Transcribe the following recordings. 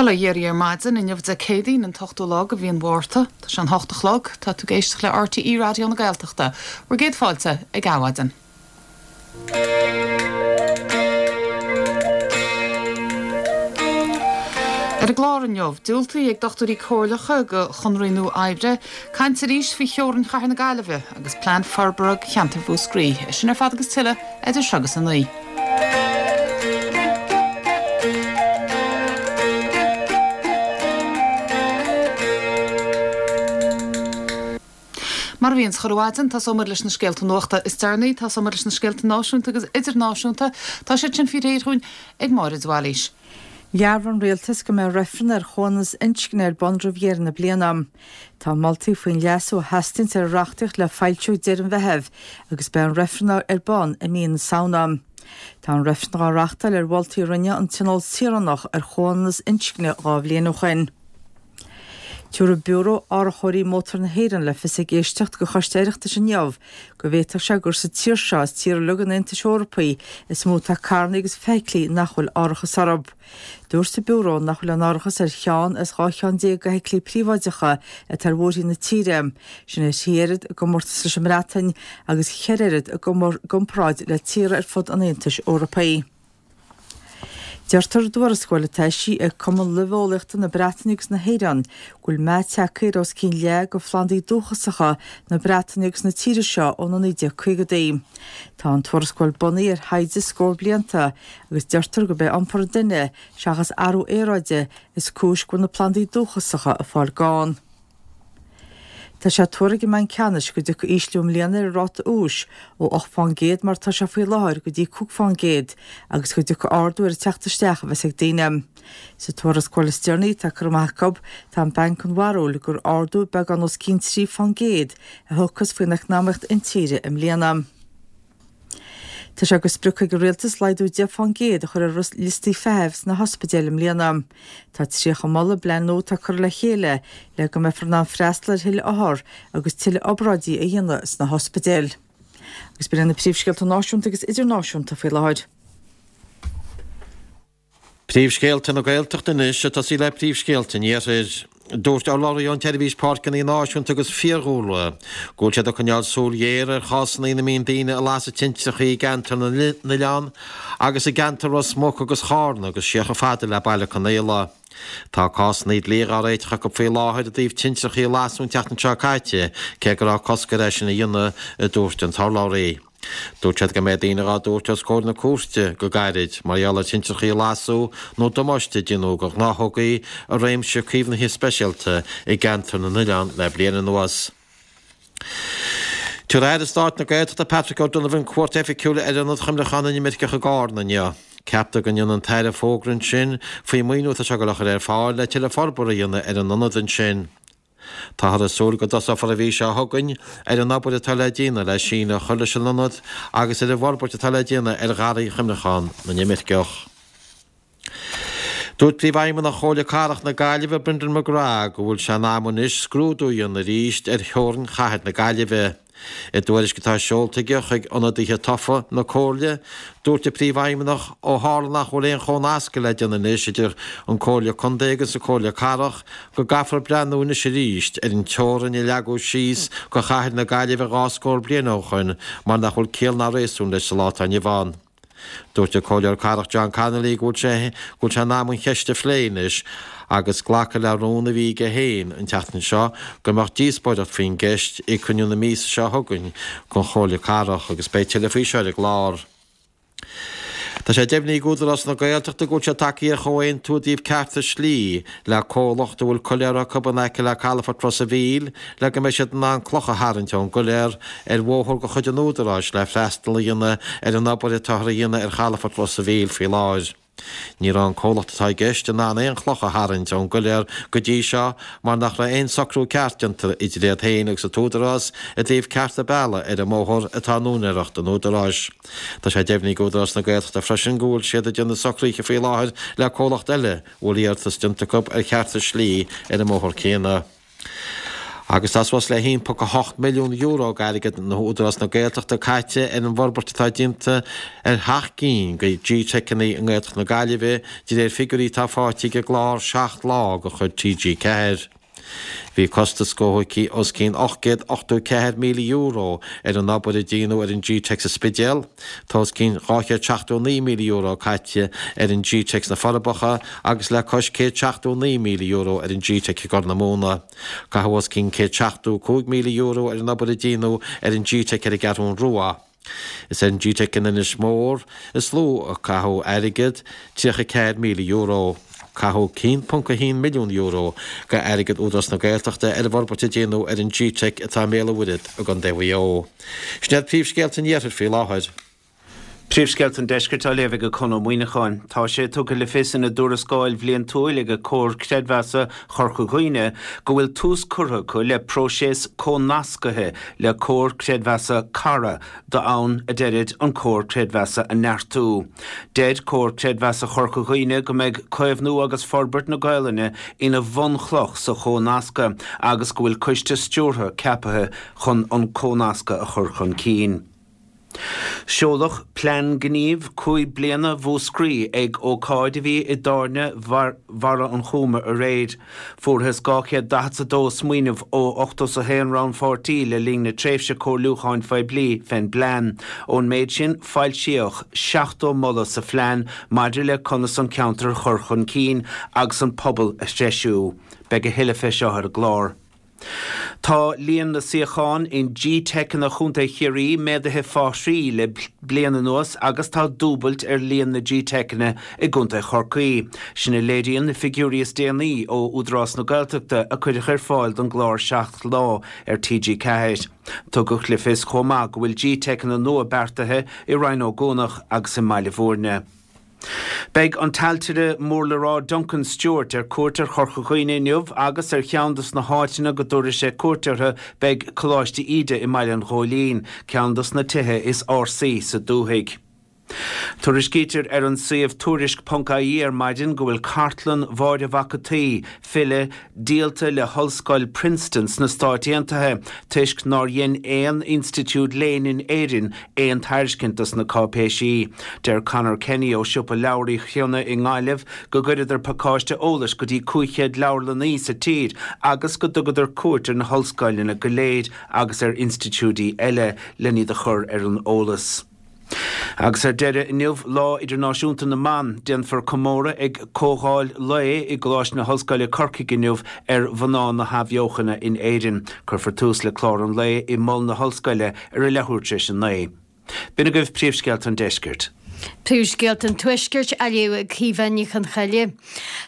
Bail ó Dhia oraibh ar maidin, inniu Dé Céadaoin an t-ochtú lá de mhí an Mhárta. Tá sé an hocht a chlog. Tá tú ag éisteacht le RTÉ Raidió na Gaeltachta. Bhur gcéad fáilte ag Adhmhaidin. Ar an gclár inniu, diúltaithe ag dochtúirí comhairleacha do chonraí nua oibre, caint arís faoi theorainn chathair na Gaillimhe agus plean forbartha do cheantar Mhúscraí. É sin ar fad agus tuilleadh idir seo agus a 9. Mar a bhíonns chuile mhaidin, tosóidh muid leis na scéalta nuachta is deireanaí. Tosóidh muid leis na scéalta náisiúnta agus idirnáisiúnta. Tá siad sin faoi réir dhúinn ag Máire de Bhailís. Dhearbhaigh an Rialtas go mbeidh reifreann ar chomhionannas inscne ar bun roimh dheireadh na bliana. Tá moltaí faoin leasú a theastaíonns ar an reachtaíocht le foilsiú ag deireadh an Mheithimh agus beidh an reifreann ar bun i mí na Samhna. Tá an reifreann dhá reachtáil ar mholtaí a rinne an Tionól Saoránach ar chomhionannas inscne 2 bhliain ó shoin. Tabharfaidh Biúró Árachóirí Mótar na hÉireann le fios ag éisteacht do Choiste Oireachtais inniu go bhféadfadh sé gur sa tír seo as tíortha uilig an Aontais Eorpaigh is mó atá carranna agus feithiclí nach bhfuil árachas orthu. Dúirt an Biúró nach bhfuil aon árachas ar cheann as 12 cheann d'fheithiclí príobháideacha atá ar bhóithrí na tíre, sin ar thrí oiread i gcomórtas leis an mBreatain agus cheithre oiread i gcomparáid le tíortha ar fud an Aontais Eorpaigh. Deirtear i dtuarascáil atá eisithe ag Cumann Luibheolaíochta na Breataine agus na hÉireann go bhfuil meath tagtha ar os cionn leath de phlandaí dúchasacha na Breataine agus na tíre seo ó na 1950idí. Tá an tuarascáil bunaithe ar thaighde scór blianta agus deirtear gurb é iompar an duine seachas athrú aeráide is cúis go bhfuil na plandaí dúchasacha ag fáil gann. Tá sé tuartha ag an mBanc Ceannais go dtiocfaidh ísliú i mbliana ar an ráta úis, ó 8 fán gcéad mar atá sé faoi láthair go dtí 5 fán gcéad, agus go dtiocfaidh ardú ar an teacht isteach a bheas ag daoine. Sa tuarascáil is deireanaí atá curtha amach acu, tá an Banc den bharúil gur ardú beagán os cionn 3 fán gcéad a thiocfas faoin eacnamaíocht intíre i mbliana. Tá sé de sprioc ag an Rialtas laghdú 10 fán gcéad a chur ar liostaí feithimh sna hospidéil i mbliana. Tá 30 moladh i bplean nua atá curtha le chéile le go mbeifear in ann freastal ar thuilleadh othar agus tuilleadh obráidí a dhéanamh sna hospidéil. Agus b'in iad na príomhscéalta náisiúnta agus idirnáisiúnta faoi láthair. Príomhscéalta na Gaeltachta anois, ag tosaí le príomhscéalta an Iarthair. Dúirt urlabhraí ón tSeirbhís Páirceanna Náisiúnta agus Fiadhúlra go bhfuil siad ag coinneáil súil ghéar ar chásanna ina mbíonn daoine ag lasadh tintreacha i gceantar na n-oileán agus i gceantar Ros Muc agus Chárna agus siar chomh fada le Baile Conaola. Tá cásanna dlí dhá réiteach acu faoi láthair i dtaobh tintreacha a lasadh an tseachtain seo caite, cé go raibh cosc air é sin a dhéanamh, a dúirt an t-urlabhraí. Dúirt siad go mbeidh daoine dhá dtabhairt os comhair na cúirte go gairid mar gheall ar thintreachaí a lasadh nó damáiste a déanadh do ghnáthógaí i réimse caomhnaithe speisialta i gceantar na n-oileán le bliain anuas. Tabharfaidh Aire Stáit na Gaeltachta Patrick O'Donovan cuairt oifigiúil ar Ionad Chuimhneacháin na nImirceach i gCárna inniu. Ceaptar go ndéanfaidh an tAire fógra ansin faoin maoiniú atá sé ag dul a chur ar fáil le tuilleadh forbartha a dhéanamh ar an ionad ansin. Táthar ag súil go dtosófar an mhí seo chugainn ar an obair atá le déanamh le síneadh a chur leis an ionad agus ar an bhforbairt atá le déanamh ar Gharraí Chuimhneachán na nImirceach. Dúirt Príomhfheidhmeannach Chomhairle Cathrach na Gaillimhe, Brendan McGrath, go bhfuil sé in am anois scrúdú a dhéanamh arís ar theorainn chathair na Gaillimhe. I dtuairisc atá seolta aige chuig ionadaithe tofa na Comhairle, dúirt an Príomhfheidhmeannach, ó tharla nach bhfuil aon chomhnascadh le déanamh anois idir an Comhairle Contae agus an Comhairle Cathrach, go gcaithfear breathnú anois arís ar an teorainn a leagadh síos do chathair na Gaillimhe dhá scór bliain ó shoin mar nach bhfuil ciall ná réasún leis sa lá atá inniu ann. Dúirt an Comhairleoir Cathrach John Connolly go bhfuil sé go bhfuil sé in am an cheist a phlé anois agus glacadh le rún a bhí aige féin an tseachtain seo go mbeadh díospóireacht faoin gceist ag cruinniú na míosa seo chugainn den Chomhairle Cathrach agus beidh tuilleadh faoi seo ar an gclár. Tá sé deimhnithe ag Údarás na Gaeltachta go bhfuil siad tagtha ar chomhaontú i dtaobh cearta slí le comhlacht a bhfuil coiléar acu in aice le calafort Ros a' Mhíl le go mbeidh siad in ann cloch a tharraingt ón gcoiléar ar bhóthar de chuid an Údaráis le freastal a dhéanamh ar an obair atáthar a dhéanamh ar chalafort Ros a' Mhíl faoi láthair. Ní raibh an comhlacht atá i gceist in ann aon chloch a tharraingt ón gcoiléar go dtí seo mar nach raibh aon socrú ceart déanta idir iad féin agus an tÚdarás i dtaobh cearta bealaigh ar an mbóthar atá in úinéireacht an Údaráis. Tá sé deimhnithe ag Údarás na Gaeltachta freisin go bhfuil siad ag déanamh socruithe faoi láthair le comhlacht eile a bhfuil iarratas déanta acu ar chearta slí ar an mbóthar céanna. Agus tá suas le €1.8 milliún d'airgead Údarás na Gaeltachta caite ar an bhforbairt atá déanta ar sheacht gcinn de G-Teiceanna i nGaeltacht na Gaillimhe, de réir figiúirí atá faighte ag an gclár 7 Lá de chuid TG4. Bhí costas góchuidh os cionn €884,000 ar an obair a déanadh ar an G-Teic sa Spidéal. Tá os cionn €279,000 caite ar an G-Teic sna Forbacha agus le cois €179,000 ar an G-Teic i gCorr na Móna. Caitheadh os cionn €175,000 ar an obair a déanadh ar an G-Teic ar an gCeathrún Rua. Is ar an G-Teic in Inis Mór is lú a caitheadh airgead, €34,000. Caitheadh €1.1 milliún d'airgead Údarás na Gaeltachta ar an bhforbairt a déanadh ar an G-Teic atá i mBéal an Mhuirthead i gContae Mhaigh Eo. Sin iad príomhscéalta an Iarthair faoi láthair. Príomhscéalta an Deiscirt á léamh ag Conn Ó Muíneacháin. Tá sé tugtha le fios ina dtuarascáil bhliantúil ag Comhar Creidmheasa Chorca Dhuibhne go bhfuil tús curtha acu le próiseas comhnascaithe le Comhar Creidmheasa Cara d'fhonn, a deirid, an comhar creidmheasa a neartú. Deir Comhar Creidmheasa Chorca Dhuibhne go mbeidh caomhnú agus forbairt na Gaolainne ina bhunchloch sa chomhnascadh agus go bhfuil coiste stiúrtha ceapaithe chun an comhnascadh a chur chun cinn. Seoladh Plean Gnímh 5 bliana Mhúscraí ag ócáid a bhí i dTábhairne Bharra an Chúma aréir. Fuarthas 242 smaoineamh ó 81 rannpháirtí le linn na tréimhse comhairliúcháin phoiblí fén bplean. Ón méid sin, foilsíodh 70 moladh sa phlean maidir le conas an ceantar a chur chun cinn agus an pobal a threisiú. Beidh a thuilleadh fé seo ar an gclár. Tá líon na suíochán in GTeiceanna Chontae Chiarraí méadaithe fá thrí le bliain anuas agus tá dúbailt ar líon na GTeiceanna i gContae Chorcaí. Sin a léiríonn na figiúirí is déanaí ó Údarás na Gaeltachta a cuireadh ar fáil don gclár 7 Lá ar TG4. Tugadh le fios chomh maith go bhfuil GTeiceanna nua beartaithe i Rinn Ó gCuanach agus i mBaile Bhúirne. Beidh an t-ailtire mór le rá Duncan Stewart ar cuairt ar Chorca Dhuibhne inniu agus ar cheann dos na háiteanna go dtabharfaidh sé cuairt orthu beidh Coláiste Íde i mBaile an Ghóilín, ceann dos na tithe is ársaí sa dúthaigh. Tuairiscítear ar an suíomh Tuairisc ponc ie ar maidin go bhfuil cartlann Mháire Mhac an tSaoi, file, díolta le hOllscoil Princeton sna Stáit Aontaithe toisc nár dhein aon institiúid léinn in Éirinn aon tairiscint dos na cáipéisí. Deir Conor Kenny ó Siopa Leabhar Uí Chionnaith i nGaillimh go gcuireadar pacáiste eolais go dtí 500 leabharlannaí sa tír agus go dtugadar cuairt ar na hollscoileanna go léir agus ar institiúidí eile len iad a chur ar an eolas. Agus ar deireadh, inniu, Lá Idirnáisiúnta na mBan, déanfar comóradh ag comhdháil lae i gColáiste na hOllscoile Corcaigh inniu ar mhná na hAthbheochana in Éirinn. Cuirfear tús le clár an lae i Mol na hOllscoile ar a leathuair tar éis a 9. B'in agaibh príomhscéalta an deiscirt. Príomhscéalta an Tuaiscirt á léamh ag Caoimhe Ní Chonchoille.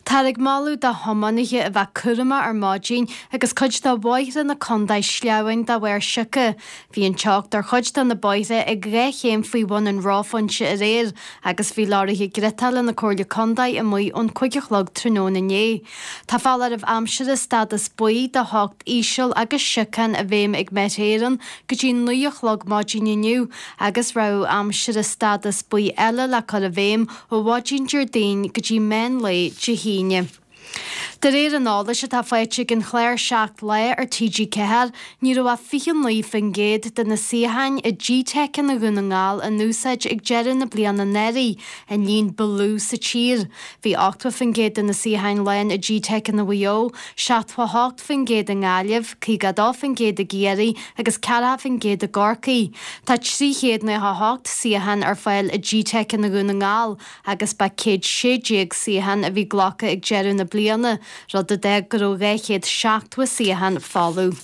Táthar ag moladh do thiománaithe a bheith cúramach ar maidin agus cuid de bhóithre na contae sleamhain de bharr sioca. Bhí an teocht ar chuid de na bóithre ag 2 chéim faoi bhun an reophointe aréir agus bhí leoraithe griotála na Comhairle Contae amuigh ón 5 a chlog tráthnóna inné. Tá foláireamh aimsire stádas buí do theocht íseal agus siocán i bhfeidhm ag Met Éireann go dtí 9 a chlog maidin inniu agus rabhadh aimsire stádas buí eile le cur i bhfeidhm ó mhaidin Déardaoin go dtí meán lae Dé hAoine. De réir an eolais atá faighte ag an chlár 7 Lá ar TG4, ní raibh ach 29% de na suíocháin i GTeiceanna Dhún na nGall in úsáid ag deireadh na bliana anuraidh, an líon ba lú sa tír. Bhí 80% de na suíocháin lán i GTeiceanna Mhaigh Eo, 78% i nGaillimh, 52% i gCiarraí agus 40% i gCorcaigh. Tá 398 suíochán ar fáil i GTeiceanna Dhún na nGall agus ba 116 suíochán a bhí glactha ag deireadh na bliana, rud a d'fhág go raibh 270 suíochán folamh.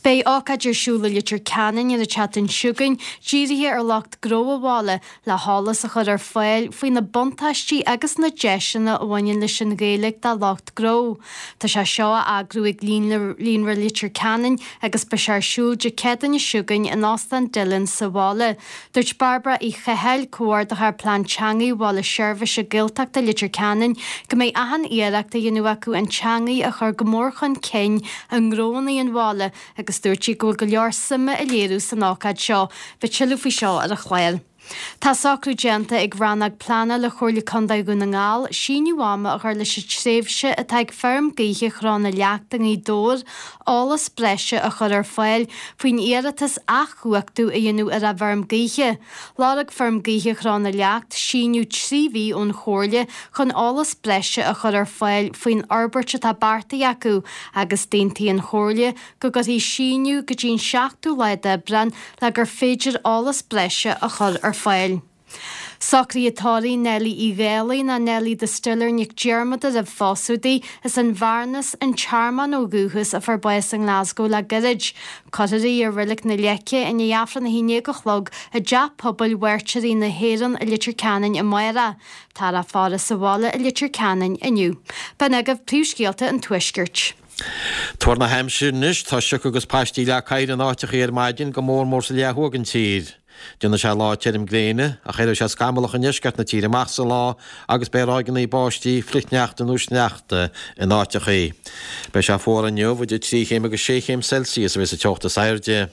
Beidh ócáid ar siúl i Leitir Ceanainn ar an tseachtain seo chugainn dírithe ar lucht gnó an bhaile le heolas a chur ar fáil faoi na buntáistí agus na deiseanna a bhaineann leis an Ghaeilge do lucht gnó. Tá sé seo á eagrú ag Líonra Leitir Ceanainn agus beidh sé ar siúl Dé Céadaoine seo chugainn in Óstán Dillon sa bhaile. Dúirt Bairbre Uí Chathail, Comhordaitheoir Plean Teanga Bhaile Seirbhíse Gaeltachta Leitir Ceanainn, go mbeidh achan iarracht á dhéanamh acu an teangaidh a chur go mór chun cinn i ngnóanna an bhaile agus dúirt sí go bhfuil go leor suime á léiriú san ócáid seo. Beidh tuilleadh faoi seo ar an chlár. Tá socrú déanta ag Rannóg Pleanála Chomhairle Contae Dhún na nGall síneadh ama a chur leis an tréimhse atá ag Feirm Gaoithe Chró na Leacht i nGaoth Dobhair eolas breise a chur ar fáil faoin iarratas athchumhachtú a dhéanamh ar a bhfeirm gaoithe. Lorg Feirm Gaoithe Chró na Leacht síneadh 3 mhí ón Chomhairle chun eolas breise a chur ar fáil faoin fhorbairt atá beartaithe acu agus d'aontaigh an Chomhairle go gcuirfí síneadh go dtí an 7ú lá d'Aibreán le gur féidir eolas breise a chur ar fáil. Socruithe tórraimh Neilí Uí Dhálaigh nó Neilí Distiller Nic Diarmada roimh phósadh di, as an Bhearnas, An Tearmann ó dhúchas, a fuair bás i nGlasgow le gairid. Cuirfear í i Reilig na Leice i ndiaidh Aifreann 11 a chlog i dTeach Pobail Mhairtírigh na hÉireann i Leitir Ceanainn amárach. Táthar á faire sa bhaile i Leitir Ceanainn inniu. B'in agaibh príomhscéalta an Tuaiscirt. Tuar na haimsire anois, tá sioc agus paistí leath cathair in áiteachaí ar maidin, go mór mór sa leath thuaidh den tír. Déanfaidh sé lá tirim gréine, ach éireoidh sé scamallach i ndeisceart na tíre amach sa lá agus beidh ráigeanna báistí, flichshneachta nó sneachta in áiteachaí. Beidh sé fuar inniu, idir 3 chéim agus 6 chéim Celsius a bheidh sa teocht is airde.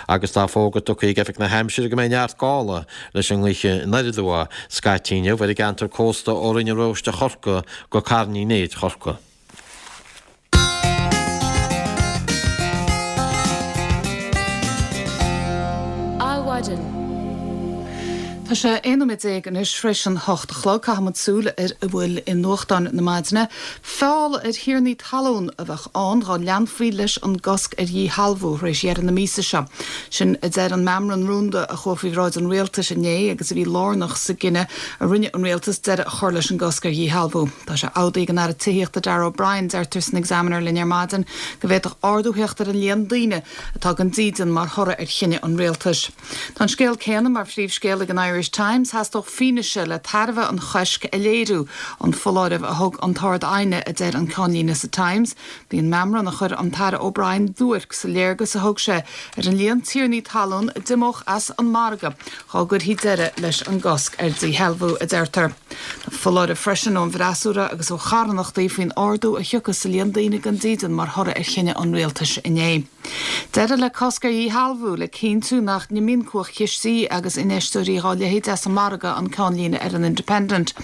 Agus tá fógra tugtha ag Oifig na hAimsire go mbeidh neart gála leis an ngaoth anoir aduaidh scaití inniu ar an gceantar cósta ó Rinn an Róiste Chorcaí go Carn Uí Néid Chorcaí. Adhmhaidin. Tá sé 11 nóiméad anois tar éis an 8 a chlog. Caithfidh muid súil ar a bhfuil i nuachtáin na maidine. Feall ar thiarnaí talún a bheadh ann dhá leanfaí leis an gcosc ar dhíshealbhú tar éis dheireadh na míosa seo. Sin a deir an meamram rúnda a chuaigh faoi bhráid an rialtais inné agus a bhí lárnach sa gcinneadh a rinne an rialtas deireadh a chur leis an gcosc ar dhíshealbhú. Tá sé amhdaí ag an Aire Tithíochta Darragh O'Brien, deirtear san Examiner linn ar maidin, go bhféadfadh ardú theacht ar an líon daoine atá gan dídean mar thoradh ar chinneadh an rialtais. Tá an scéal céanna mar phríomhscéal ag an Irish Times, theastódh fianaise le tairbhe an choisc a léiriú, an foláireamh a thug an tArd-Aighne, a deir an ceannlíne sa Times. Bhí an meamram a chuir an tAire O'Brien duairc sa léargas a thug sé ar an líon tiarnaí talún a d'imeodh as an margadh dhá gcuirfí deireadh leis an gcosc ar dhíshealbhú, a deirtear. Tá foláireamh freisin ón bhfreasúra agus ó charthanachtaí faoin ardú a thiocfas sa líon daoine gan dídean mar thoradh ar chinneadh an rialtais inné. Deireadh le cosc ar dhíshealbhú le cinntiú nach n-imíonn cumhachtchistí agus infheisteoirí dhá leithéid as an margadh an ceannlíne ar an Independent.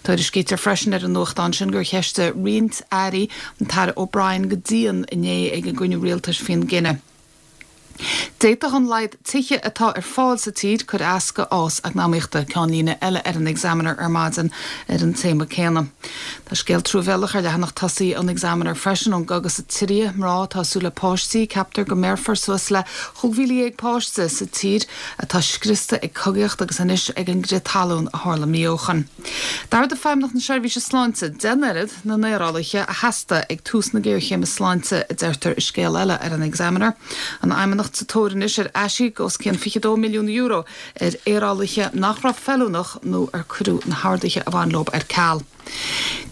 Tuairiscítear freisin ar an nuachtán sin gur cheistigh roinnt airí an tAire O'Brien go dian inné ag an gcruinniú rialtais faoin gcinneadh. D'fhéadfadh an laghad tithe atá ar fáil sa tír cur as go fhás eacnamaíochta, ceannlíne eile ar an Examiner ar maidin ar an téama céanna. Tá scéal truamhéalach ar leathanach tosaigh an Examiner freisin ón gcogadh sa tSiria, mná atá ag súil le páistí, ceaptar go mbéarfar suas le 15,000 páiste sa tír atá scriosta ag cogaíocht agus anois ag an gcrith talún a tharla mí ó shoin. D'ardaigh Feidhmeannacht na Seirbhíse Sláinte deich n-oiread na n-aerálaithe a theastaigh ag tús na géarchéime sláinte, a deirtear i scéal eile ar an Examiner. An Fheidhmeannacht sa tóir anois ar aisíoc os cionn €22 milliún ar aerálaithe nach raibh feiliúnach nó ar cuireadh na horduithe a bhain leo ar ceal.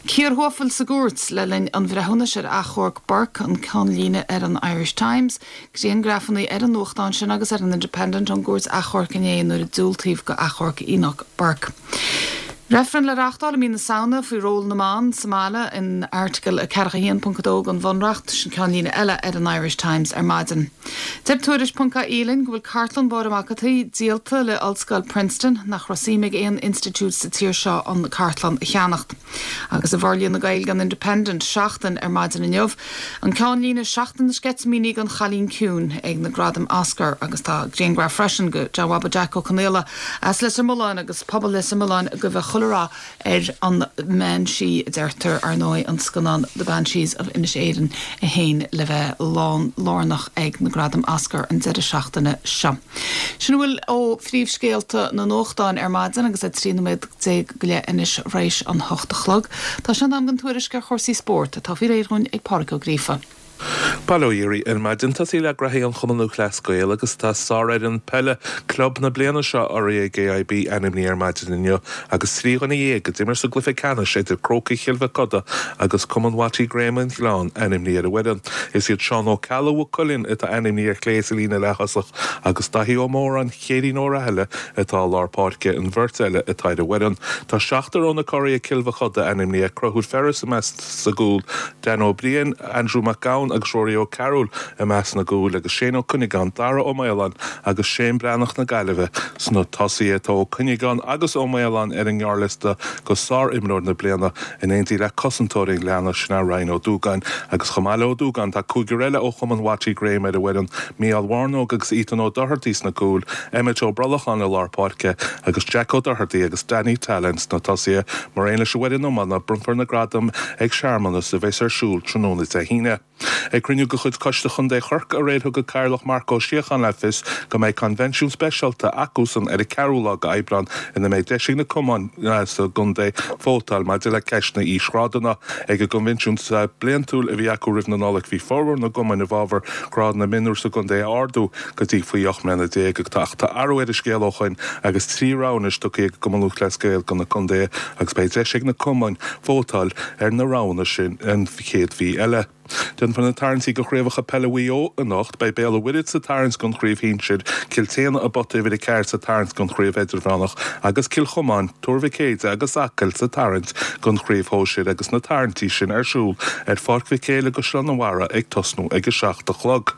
Cíor thuafail sa gcúirt le linn an bhreithiúnais ar achomharc Burke, an ceannlíne ar an Irish Times. Griangrafanna ar an nuachtán sin agus ar an Independent ón gcúirt achomhairc inné nuair a diúltaíodh go achomharc Enoch Burke. Reifreann le reáchtáil i mí na Samhna faoi ról na mban sa mbaile in Airteagal 41.2 den Bhunreacht, sin ceannlíne eile ar an Irish Times ar maidin. Deir Tuairisc ponc ie linn go bhfuil cartlann Mháire Mac an tSaoi díolta le Ollscoil Princeton, nach raibh suim ag aon institiúid sa tír seo an cartlann a cheannacht. Agus i bhforlíonadh Gaeilge an Independent, Seachtain ar maidin inniu, an ceannlíne 'Seachtain na Sceitimíní don Chailín Ciúin' ag na Gradaim Oscar agus tá grianghraf freisin de John Bhaba Jack Ó Conaola as Leitir Mealláin agus pobal Leitir Mealláin ag guí chuile rath ar an mbean sí, a deirtear, ar ndóigh, an scannán The Banshees of Inisherin é féin le bheith lán lárnach ag na Gradaim Oscar an deireadh seachtaine seo. Sin a bhfuil ó phríomhscéalta na nuachtáin ar maidin agus é 13 nóiméad go leith anois th'réis an hocht a chlog. Tá sé in am don tuairisc ar chúrsaí spóirt atá faoi réir dhúinn ag Pádraic Ó Gríofa. Bail ó Dhia oraibh ar maidin. Tosaí le graithí an Chumann Lúthchleas Gael agus tá sárfhoireann peile club na bliana seo urraithe ag AIB ainmnithe ar maidin inniu agus 13 dhuine a d'imir sa gcluiche ceannais idir Crócaigh Chill Mhic Coda agus Cumann Watty Graham an Ghleann ainmnithe ar an bhfoireann. Is iad Seán Ó Ceallaigh Mhaigh Cuilinn atá ainmnithe ar chlé sa líne leath-thosach agus Daithí Ó Móráin Céirín Ó Rathaille atá i lár páirce an bheirt eile atá ar an bhfoireann. Tá seachtar ó na curaidh Cill Mhic Coda ainmnithe, Conchúr Ferris i measc sa gcúl, Dan Ó Briain, Andrew Mac Gabhann agus Rory. Ruairí Ó Cearúil i measc na gcúil agus Shane Ó Cuinneagáin, Dara Ó Maoláin agus Shane Breathnach na Gaillimhe sna tosaithe. Tá Ó Cuinneagáin agus Ó Maoláin ar an ngearrliosta go sár-imreoir na bliana in éindí le cosantóir an Ghleanna, sin é Ryan Ó Dúgáin. Agus chomh maith le Ó Dúgáin tá cúigear eile ó chumann Watty Graham ar an bhfoireann, Mícheál Mharnóg agus Ethan Ó Dochartaigh sna cúil, Emmet Ó Brollacháin i lár páirce agus Jack Ó Dochartaigh agus Danny Tallon sna tosaithe. Mar aon leis an bhfoireann iomána, bronnfar na gradaim ag searmanas a bheas ar siúl tráthnóna Dé hAoine. Ag cruinniú de chuid Coiste Chontae Chorcaí aréir thug an Cathaoirleach Marc Ó Síocháin le fios go mbeidh coinbhinsiún speisialta acusan ar an 4ú lá d'Aibreán ina mbeidh deis ag na cumainn sa gcontae vótáil maidir le ceist na n-aoisghrádanna. Ag an gcoinbhinsiún bliantúil a bhí acu roimh na Nollag bhí formhór na gcumainn i bhfabhar grád na mionúr sa gcontae a ardú go dtí faoi 18 mbliana ach tá athrú ar an scéal ó shoin agus 3 rogha anois tugtha ag an gCumann Lúthchleas Gael do na contaetha agus beidh deis ag na cumainn vótáil ar na roghanna sin an chéad mhí eile. Déanfar na tarraingtí do chraobhacha peile Mhaigh Eo anocht. Beidh Béal an Mhuirthead sa tarraingt don chraobh shinsir, Cill tSéadhna i bpota uimhir 4 sa tarraingt don chraobh idirmheánach agus Cill Chomáin, Tuar Mhic Éide agus Acaill sa tarraingt don chraobh shóisir agus na tarraingtí sin ar siúl ar Pháirc Mhic Éil i gCaisleán an Bharraigh ag tosnú ag a 7 a chlog.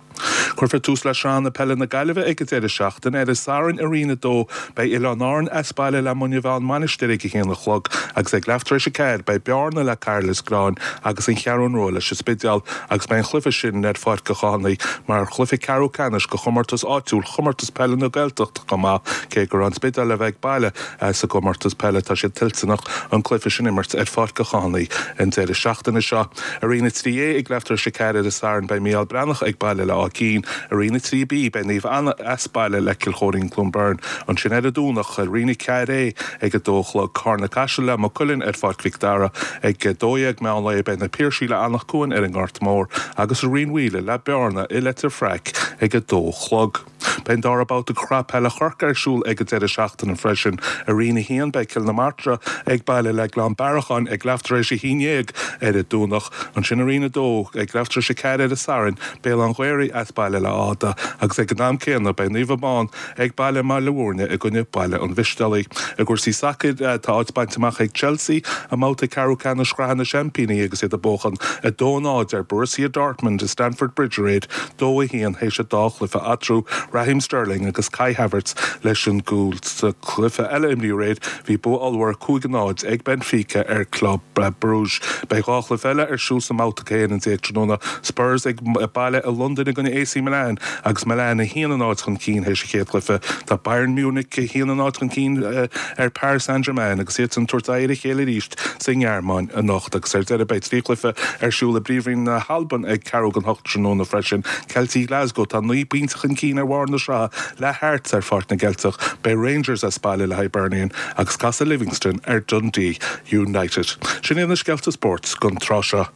Cuirfear tús le Sraitheanna Peile na Gaillimhe ag an deireadh seachtaine. Ar an Satharn i Roinn 2, beidh Oileáin Árann as baile le Muine Mheá-An Mhainistir ag 1 a chlog agus ag leath tar éis 4 beidh Bearna le Cairlios Gráin agus An Cheathrún Rua leis an Spidéal agus beidh an chluiche sin ar Pháirc an Chathánaigh mar chluiche ceathrú ceannais de chomórtas áitiúil Chomórtas Peile na Gaeltachta chomh maith. Cé gur An Spidéal a bheidh ag baile sa gcomórtas peile, tá siad toilteanach an cluiche sin a imirt ar Pháirc an Chathánaigh an deireadh seachtaine seo. I Roinn 3A ag leath tar éis 4 ar an Satharn beidh Mícheál Breathnach ag baile le Áth Cinn. I Roinn 3B beidh Naomh Anna as baile le Cill Chóirín Cluain Bheirn. Ansin ar an Domhnach i Roinn 4A ag 2 a chlog Carna Caiseal le Maigh Cuilinn ar Pháirc Mhic Dara. Ag 12 meán lae beidh Na Piarsaigh le Anach Cuain ar an nGort Mór agus i Roinn Mhaoile le Bearna i Leitir Fraic ag 2 a chlog. Beidh an dara babhta de Shraith Peile Chorcaí ar siúl ag an deireadh seachtaine freisin. I Roinn 1, beidh Cill na Martra ag baile le Gleann Bearacháin ag leath tar éis 11 ar an Domhnach. Ansin i Roinn 2, ag leath tar éis 4 ar an Satharn, Béal an Ghaorthaidh as baile le Áth Dha agus ag an am céanna beidh Naomh Abán ag baile i mBaile Bhúirne i gcoinne Baile an Mhistéalaigh. I gcúrsaí sacair, tá áit bainte amach ag Chelsea i mbabhta ceathrú ceannais Shraith na Seaimpíní agus iad ag buachan 2-0 ar Borussia Dortmund i Stamford Bridge aréir. 2-1 théis an dá chluiche eatarthu, Raheem Sterling agus Kai Havertz leis an gcúl. Sa chluiche eile a imríodh aréir, bhí bua ollmhór 5-0 ag Benfica ar Club Brugge. Beidh dhá chluiche eile ar siúl sa mbabhta 11 tráthnóna, Spurs ag baile i Londain i gcoinne AC Milan agus Milan 1-0 chun cinn théis an chéad chluiche. Tá Bayern Munich 1-0 chun cinn ar Paris Saint-Germain agus iadsan ag tabhairt aghaidh ar a chéile arís sa nGearmáin anocht agus ar deireadh beidh 3 chluiche ar siúl i bPríomhroinn na hAlban ag ceathrú don hocht tráthnóna freisin. Ceiltigh Glasgow atá 9 bpointe chun cinn ar bharr na sraithe le Hearts ar Pháirc na gCeilteach. Beidh Rangers as baile le Hibernian agus casfaidh Livingston ar Dundee United. Sin iad na scéalta spóirt don tráth seo.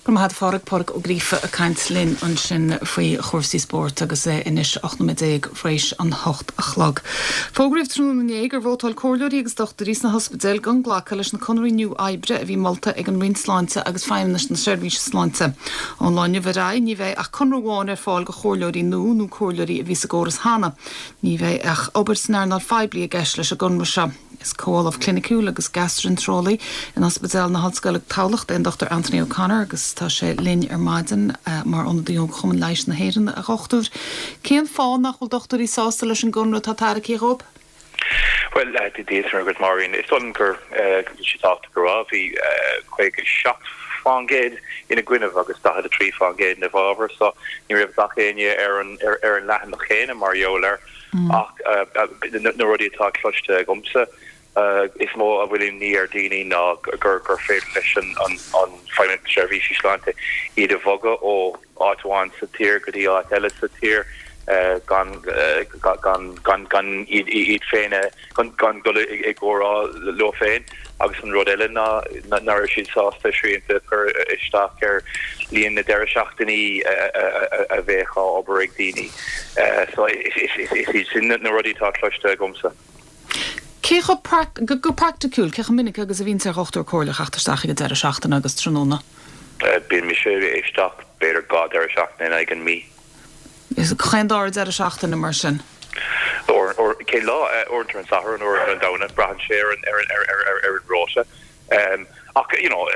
Go raibh maith agat a Phádraig, Pádraig Ó Gríofa ag caint linn ansin faoi chúrsaí spóirt agus é anois 18 nóiméad tar éis an hocht a chlog. Fógraíodh tráthnóna inné gur vótáil comhairleoirí agus dochtúirí sna hospidéil gan glacadh leis na conarthaí nua oibre a bhí molta ag an Roinn Sláinte agus Feidhmeannas na Seirbhíse Sláinte. Ón lá inniu ar aghaidh ní bheidh ach conradh amháin ar fáil do chomhairleoirí nua nó comhairleoirí a bhí sa gcóras cheana. Ní bheidh ach obair san earnáil phoiblí i gceist leis an gconradh seo. Is Comh-Ollamh Cliniciúil agus Gastrainteareolaí in Ospidéal na hOllscoile Tamhlacht é an Dr Anthony O'Connor agus tá sé linn ar maidin mar ionadaí ó Chumann Leighis na hÉireann. A Dhochtúir, cén fáth nach bhfuil dochtúirí sásta leis an gconradh atá tairgthe dhóibh? Bhuel, Dia duit agus Máirín, is dóigh liom go bhfuil sé tábhachtach a rá, bhí 57% ina gcoinnibh agus 43% ina bhfabhar, so ní raibh gach éinne ar an leathanach chéanna mar gheall air. Ach na rudaí atá cloiste agamsa, is mó a bhfuil imní ar daoine ná gur féidir leis an Feidhmeannacht Seirbhísí Sláinte iad a bhogadh ó áit amháin sa tír go dtí áit eile sa tír gan gan iad féin a gan dul i gcomhrá leo féin agus an rud eile ná nach raibh siad sásta srianta a chur isteach ar líon na deireadh seachtainí a bheadh á obair ag daoine. So is iad sin na rudaí atá cloiste agamsa. Cé chomh, go praiticiúil, cé chomh minic agus a bhíonns ar dhochtúir comhairleach theacht isteach ag an deireadh seachtaine agus tráthnóna? Bíonn mise isteach b'fhéidir dhá deireadh seachtaine in aghaidh an mí. Chaon dara deireadh seachtaine mar sin? Cén lá? Uaireanta ar an Satharn, uaireanta ar an Domhnach, braitheann sé ar an ar an rota. Ach you know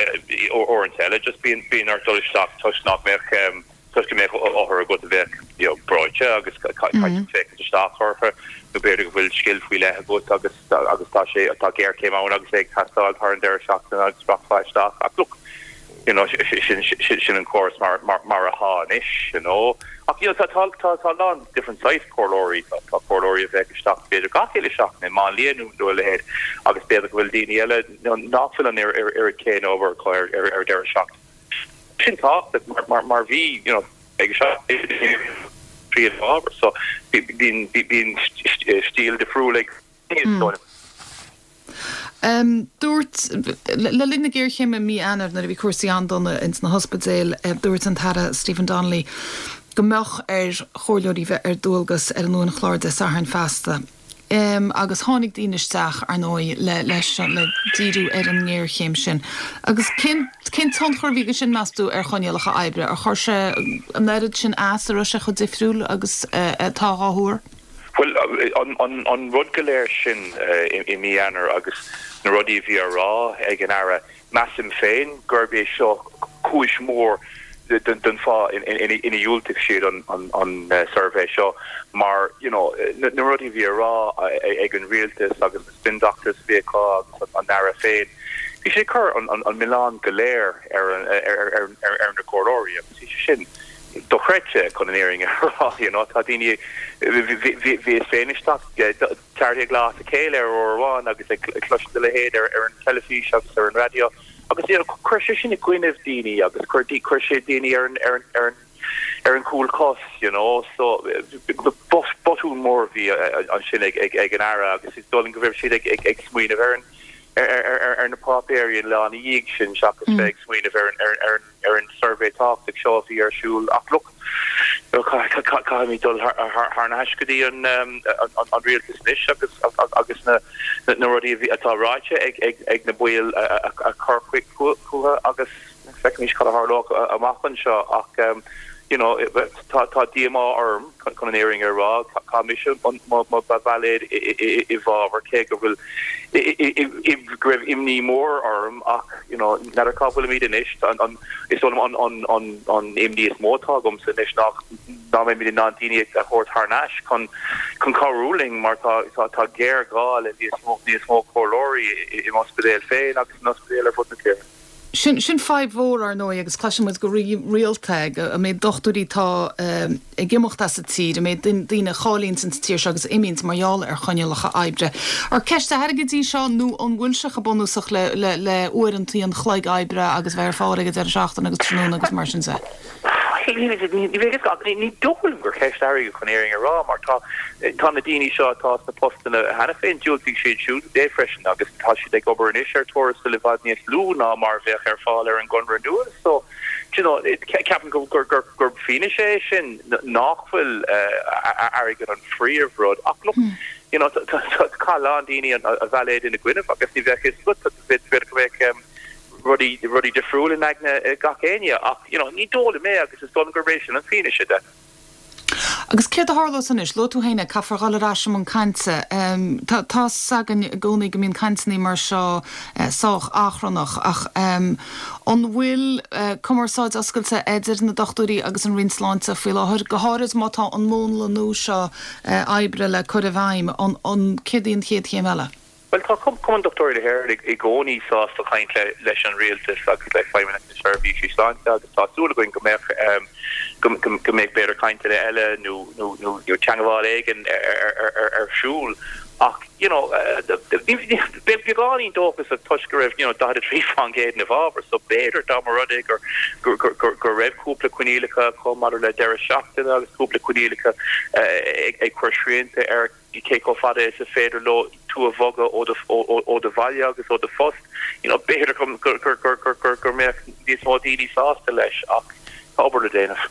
uaireanta eile just bíonn bíonn ort dul isteach toisc nach mbeadh. Toisc go mbeadh othar agat a bheadh you know breoite agus caithfidh tú féachaint isteach orthu nó b'fhéidir go bhfuil scil faoi leith agat agus agus tá sé tá géarchéim ann agus é ag teastáil thar an deireadh seachtaine agus rachfá isteach ach look you know sin sin sin an córas mar mar mar atá anois you know ach you know tá tá tá tá a lán different size comhairleoirí tá tá comhairleoirí a bheadh isteach b'fhéidir gach uile seachtain i máinlia nó nó a leithéid agus b'fhéidir go bhfuil daoine eile nach bhfuil an oiread céanna obair acu ar ar ar deireadh seachtaine. Sin tábhachtach mar mar bhí you know ag príomhábhar so bíonn bíonn stíl difriúil ag daoine. Dúirt, le linn na géarchéime i mí Eanáir nuair a bhí cúrsaí an-dona ins na hospidéil, dúirt an tAire Stephen Donnelly go mbeadh ar chomhairleoirí bheith ar dualgas ar an uainchlár Dé Sathairn feasta. Agus tháinig daoine isteach, ar ndóigh, le, leis, le díriú ar an ngéarchéim sin. Agus cén, cén tionchar a bhí aige sin, meas tú, ar choinníollacha oibre? Ar chuir sé an oiread sin as, an raibh sé chomh difriúil agus atá á thuar? Bhuel, an, an, an rud go léir sin i mí Eanáir agus na rudaí a bhí á rá ag an Aire, Measaim féin gurb é seo cúis mhór den fáth ina dhiúltaigh siad an suirbhé seo mar you know na rudaí a bhí á rá ag an rialtas agus na spin doctors a bhí acu agus an Aire féin, bhí sé ag cur an milleán go léir ar na comhairleoirí agus bhí sé sin dochreidte chun an fhírinne a rá you know tá daoine, bhíos féin isteach 14 lá as a chéile ar uair amháin agus ag cloisint a leithéid ar an teilifís agus ar an raidió agus you know chuir sé sin i gcoinnibh daoine agus chuir chuir sé daoine ar an ar an ar an ar an chúl cos you know so botún mór a bhí ansin ag ag ag an Aire agus is dóigh liom go raibh siad ag ag ag smaoineamh ar an ar ar ar na páipéirí an lá ina dhiaidh sin seachas bheith ag smaoineamh ar an ar an ar an ar an suirbhé tábhachtach seo a bhí ar siúl ach look, caithfimid dul thar n-ais go dtí an rialtas anois agus agus na rudaí atá ráite ag na baill a chur chucu agus feicfimid cad a tharlóidh amach anseo ach you know tá tá díomá orm chun an fhírinne a rá. Chaith mise mo bhailéad i bhfabhar cé go bhfuil go raibh imní mór orm ach you know n'fheadar cá bhfuilimid anois. Is dóigh liom an imní is mó atá agamsa anois ná nach mbeimid in ann daoine a thabhairt thar n-ais chun chun cabhrú linn mar tá tá géarghá le níos mó níos mó comhairleoirí i m'ospidéal féin agus in ospidéil ar fud na tíre. Sin, sin fadhb mhór, ar ndóigh, agus cloiseann muid go rialta an méid dochtúirí atá ag imeacht as an tír, an méid daoine a cháilíonns ins an tír seo agus a imíonns mar gheall ar choinníollacha oibre. Ar ceist airgid í seo nó an bhfuil sé chomh bunúsach le, le, le uaireantaí an chloig oibre agus bheith ar fáil ag an deireadh seachtaine agus tráthnóna agus mar sin de? Ní dóigh liom gur ceist airgid chun an fhírinne a rá mar tá tá na daoine seo atá sna postanna cheana féin, diúltaigh siad siúd é freisin agus tá siad ag obair anois ar tuarastal i bhfad níos lú ná mar a bheadh ar fáil ar an gconradh nua so do you know ceapaim gur gur gur fianaise é sin nach bhfuil airgead an phríomhrud ach look you know chaith a lán daoine a bhailéad ina gcoinnibh agus ní bheadh fhios agat b'fhéidir go mbeadh rudaí, rudaí difriúil in aigne gach éinne ach, you know, ní dóigh liom é agus is dóigh liom gurb é sin an fianaise de. Agus céard a tharlós anois? Luaigh tú féin é, caithfear dhul ar ais i mbun cainte. Tá, tá's againn i gcónaí go mbíonn cainteanna mar seo sách achrannach ach an bhfuil cumarsáid oscailte idir na dochtúirí agus an Roinn Sláinte faoi láthair, go háirid má tá an múnla nua seo oibre le cur i bhfeidhm, an, an, céard í an chéad chéim eile? Bhuel, tá Cumann Dochtúirí na hÉireann i gcónaí sásta caint leis an Rialtas agus le Feidhmeannacht na Seirbhísí Sláinte agus tá súil againn go mbeadh go mbeidh b'fhéidir cainteanna eile nó nó teagmháil éigin ar siúl ach you know beagáinín dóchasach toisc go raibh you know 43% ina bhfabhar so b'fhéidir dá mba rud é gur go raibh cúpla coinníollacha acu maidir le deireadh seachtaine agus cúpla coinníollacha ag cur srianta ar cé chomh fada is a féidir leo tú a bhogadh ó do bhaile agus ó do phost, you know, b'fhéidir go mbeadh níos mó daoine sásta leis ach tá obair le déanamh.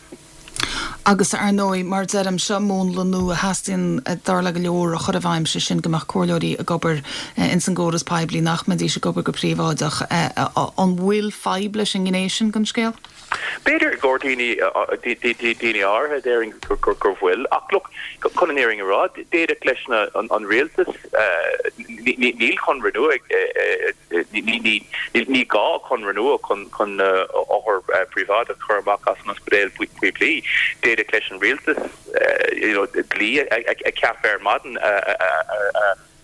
Agus ar ndóigh, mar a deirim, seo múnla nua a theastaíonn, dar le go leor, a chur i bhfeidhm, sé sin go mbeadh comhairleoirí ag obair ins an gcóras poiblí, nach mbeidís ag obair go príobháideach. An bhfuil fadhb leis an ngné sin den scéal? B'fhéidir i gcomhair daoine, daoine áirithe, déarfainn gur bhfuil. Ach look, chun an fhírinne a rá, d'fhéadfadh leis na, an rialtas, níl conradh nua ag, ní gá conradh nua chun na othair. príobháideach a chur amach as an ospidéal poiblí. D'fhéadfadh leis an rialtas you know dlí a cheapadh ar maidin a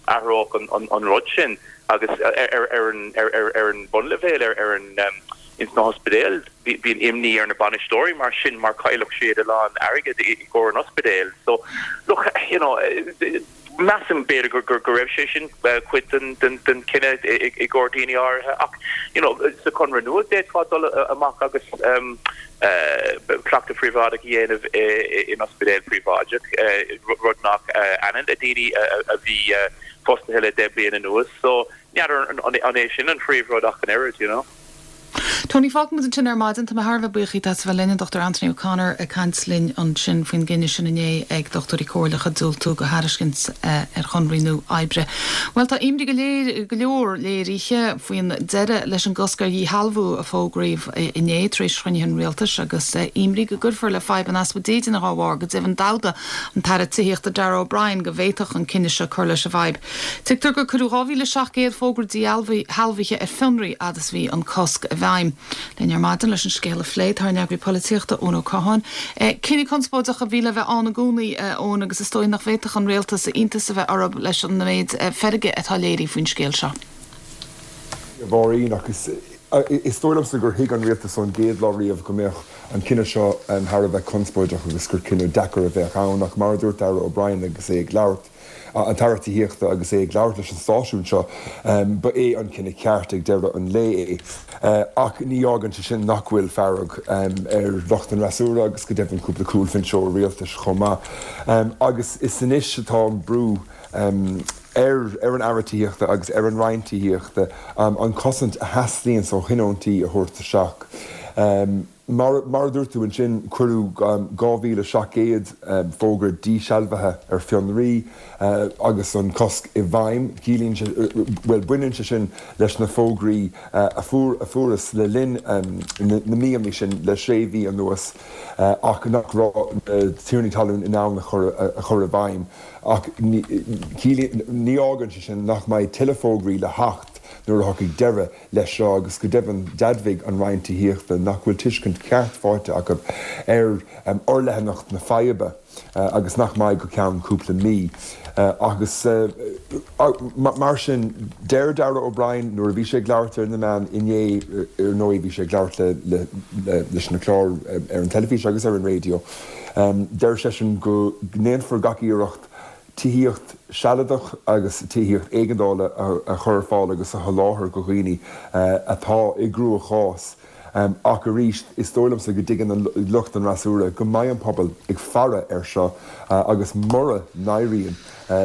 athródh an rud sin agus ar an bhunleibhéal ar an ins na hospidéil bíonn imní ar na bainisteoirí mar sin mar chaillfeadh siad a lán airgid i gcomhair an ospidéil. So look you know measaim b'fhéidir go go raibh sé sin cuid den den chinneadh i gcomhair daoine áirithe ach you know sa chonradh nua d'fhéadfá dul amach agus cleachtadh príobháideach a dhéanamh in ospidéal príobháideach, rud nach ionann le daoine a bhí fostaithe le 10 bliain anuas. So, n'fheadar an é sin an phríomhrud ach an oiread, you know. Tony, fágfaimid ansin ar maidin. Tá mé thar a bheith buíoch díot as a bheith linn, an Dr Anthony O'Connor ag caint linn ansin faoin gcinneadh sin inné ag dochtúirí comhairleacha diúltú do thairiscint ar chonraí nua oibre. Bhuel, tá imní go léir, go leor léirithe faoin deireadh leis an gcosc ar dhíshealbhú a fógraíodh inné tar éis chruinnithe an rialtais agus imní go gcuirfear le fadhb an easpa dídine dá bharr. Go deimhin d'admhaigh an tAire Tithíochta Darragh O'Brien go bhféadfadh an cinneadh seo cur leis an bhfadhb. Tuigtear gur cuireadh 2,700 fógra díshealbhaithe ar fionraí fhad is bhí an cosc i bhfeidhm. Linn ar maidin leis an scéal a phlé tá ár n-eagraí polaitíochta, Eoin Ó Catháin. Cinneadh conspóideach a bhí le bheith ann i gcónaí, a Eoin, agus is dóigh nach bhféadfadh an rialtas iontas a bheith orthu leis an méid feirge atá léirithe faoin scéal seo. A Mháirín, ach is dóigh liomsa gur thuig an rialtas ón gcéad lá riamh go mbeadh an cinneadh seo thar a bheith conspóideach agus gur cinneadh deacair a bheadh ann ach mar a dúirt Darragh O'Brien agus é ag labhairt an tAire Tithíochta agus é ag labhairt leis an stáisiún seo, ba é an cinneadh ceart ag deireadh an lae é. Ach ní fhágann sé sin nach bhfuil fearg ar lucht an fhreasúra agus go deimhin cúpla cúlbhinseoir rialtais chomh maith. Agus is anois atá an brú ar an Aire Tithíochta agus ar an Roinn Tithíochta an chosaint a theastaíonns ó thionóntaí a thabhairt isteach. Mar a dúirt tú ansin, cuireadh 2,700 fógra díshealbhaithe ar fionraí agus an cosc i bhfeidhm. Ciallaíonn sé, bhuel, baineann sé sin leis na fógraí a fuarthas le linn na míonna sin, le sé mhí anuas, ach nach raibh na tiarnaí talún in ann a chur i bhfeidhm. Ach ní fhágann sé sin nach mbeidh tuilleadh fógraí le theacht nuair a thiocfaidh deireadh leis seo agus go deimhin d'admhaigh an Roinn Tithíochta nach bhfuil tuiscint cheart faighte acu ar fhorleathanacht na faidhbe agus nach mbeidh go ceann cúpla mí. Agus mar sin, deir Darragh O'Brien nuair a bhí sé ag labhairt ar na meáin inné, ar ndóigh bhí sé ag labhairt leis na cláir ar an teilifís agus ar an raidió, deir seisean go ndéanfar gach iarracht tithíocht sealadach agus tithíocht éigeandála a chur ar fáil agus a sholáthar do dhaoine atá i gcruachás. Ach arís, is dóigh liomsa go dtuigeann lucht an fhreasúra go mbeidh an pobal ag faire air seo agus mura n-éiríonn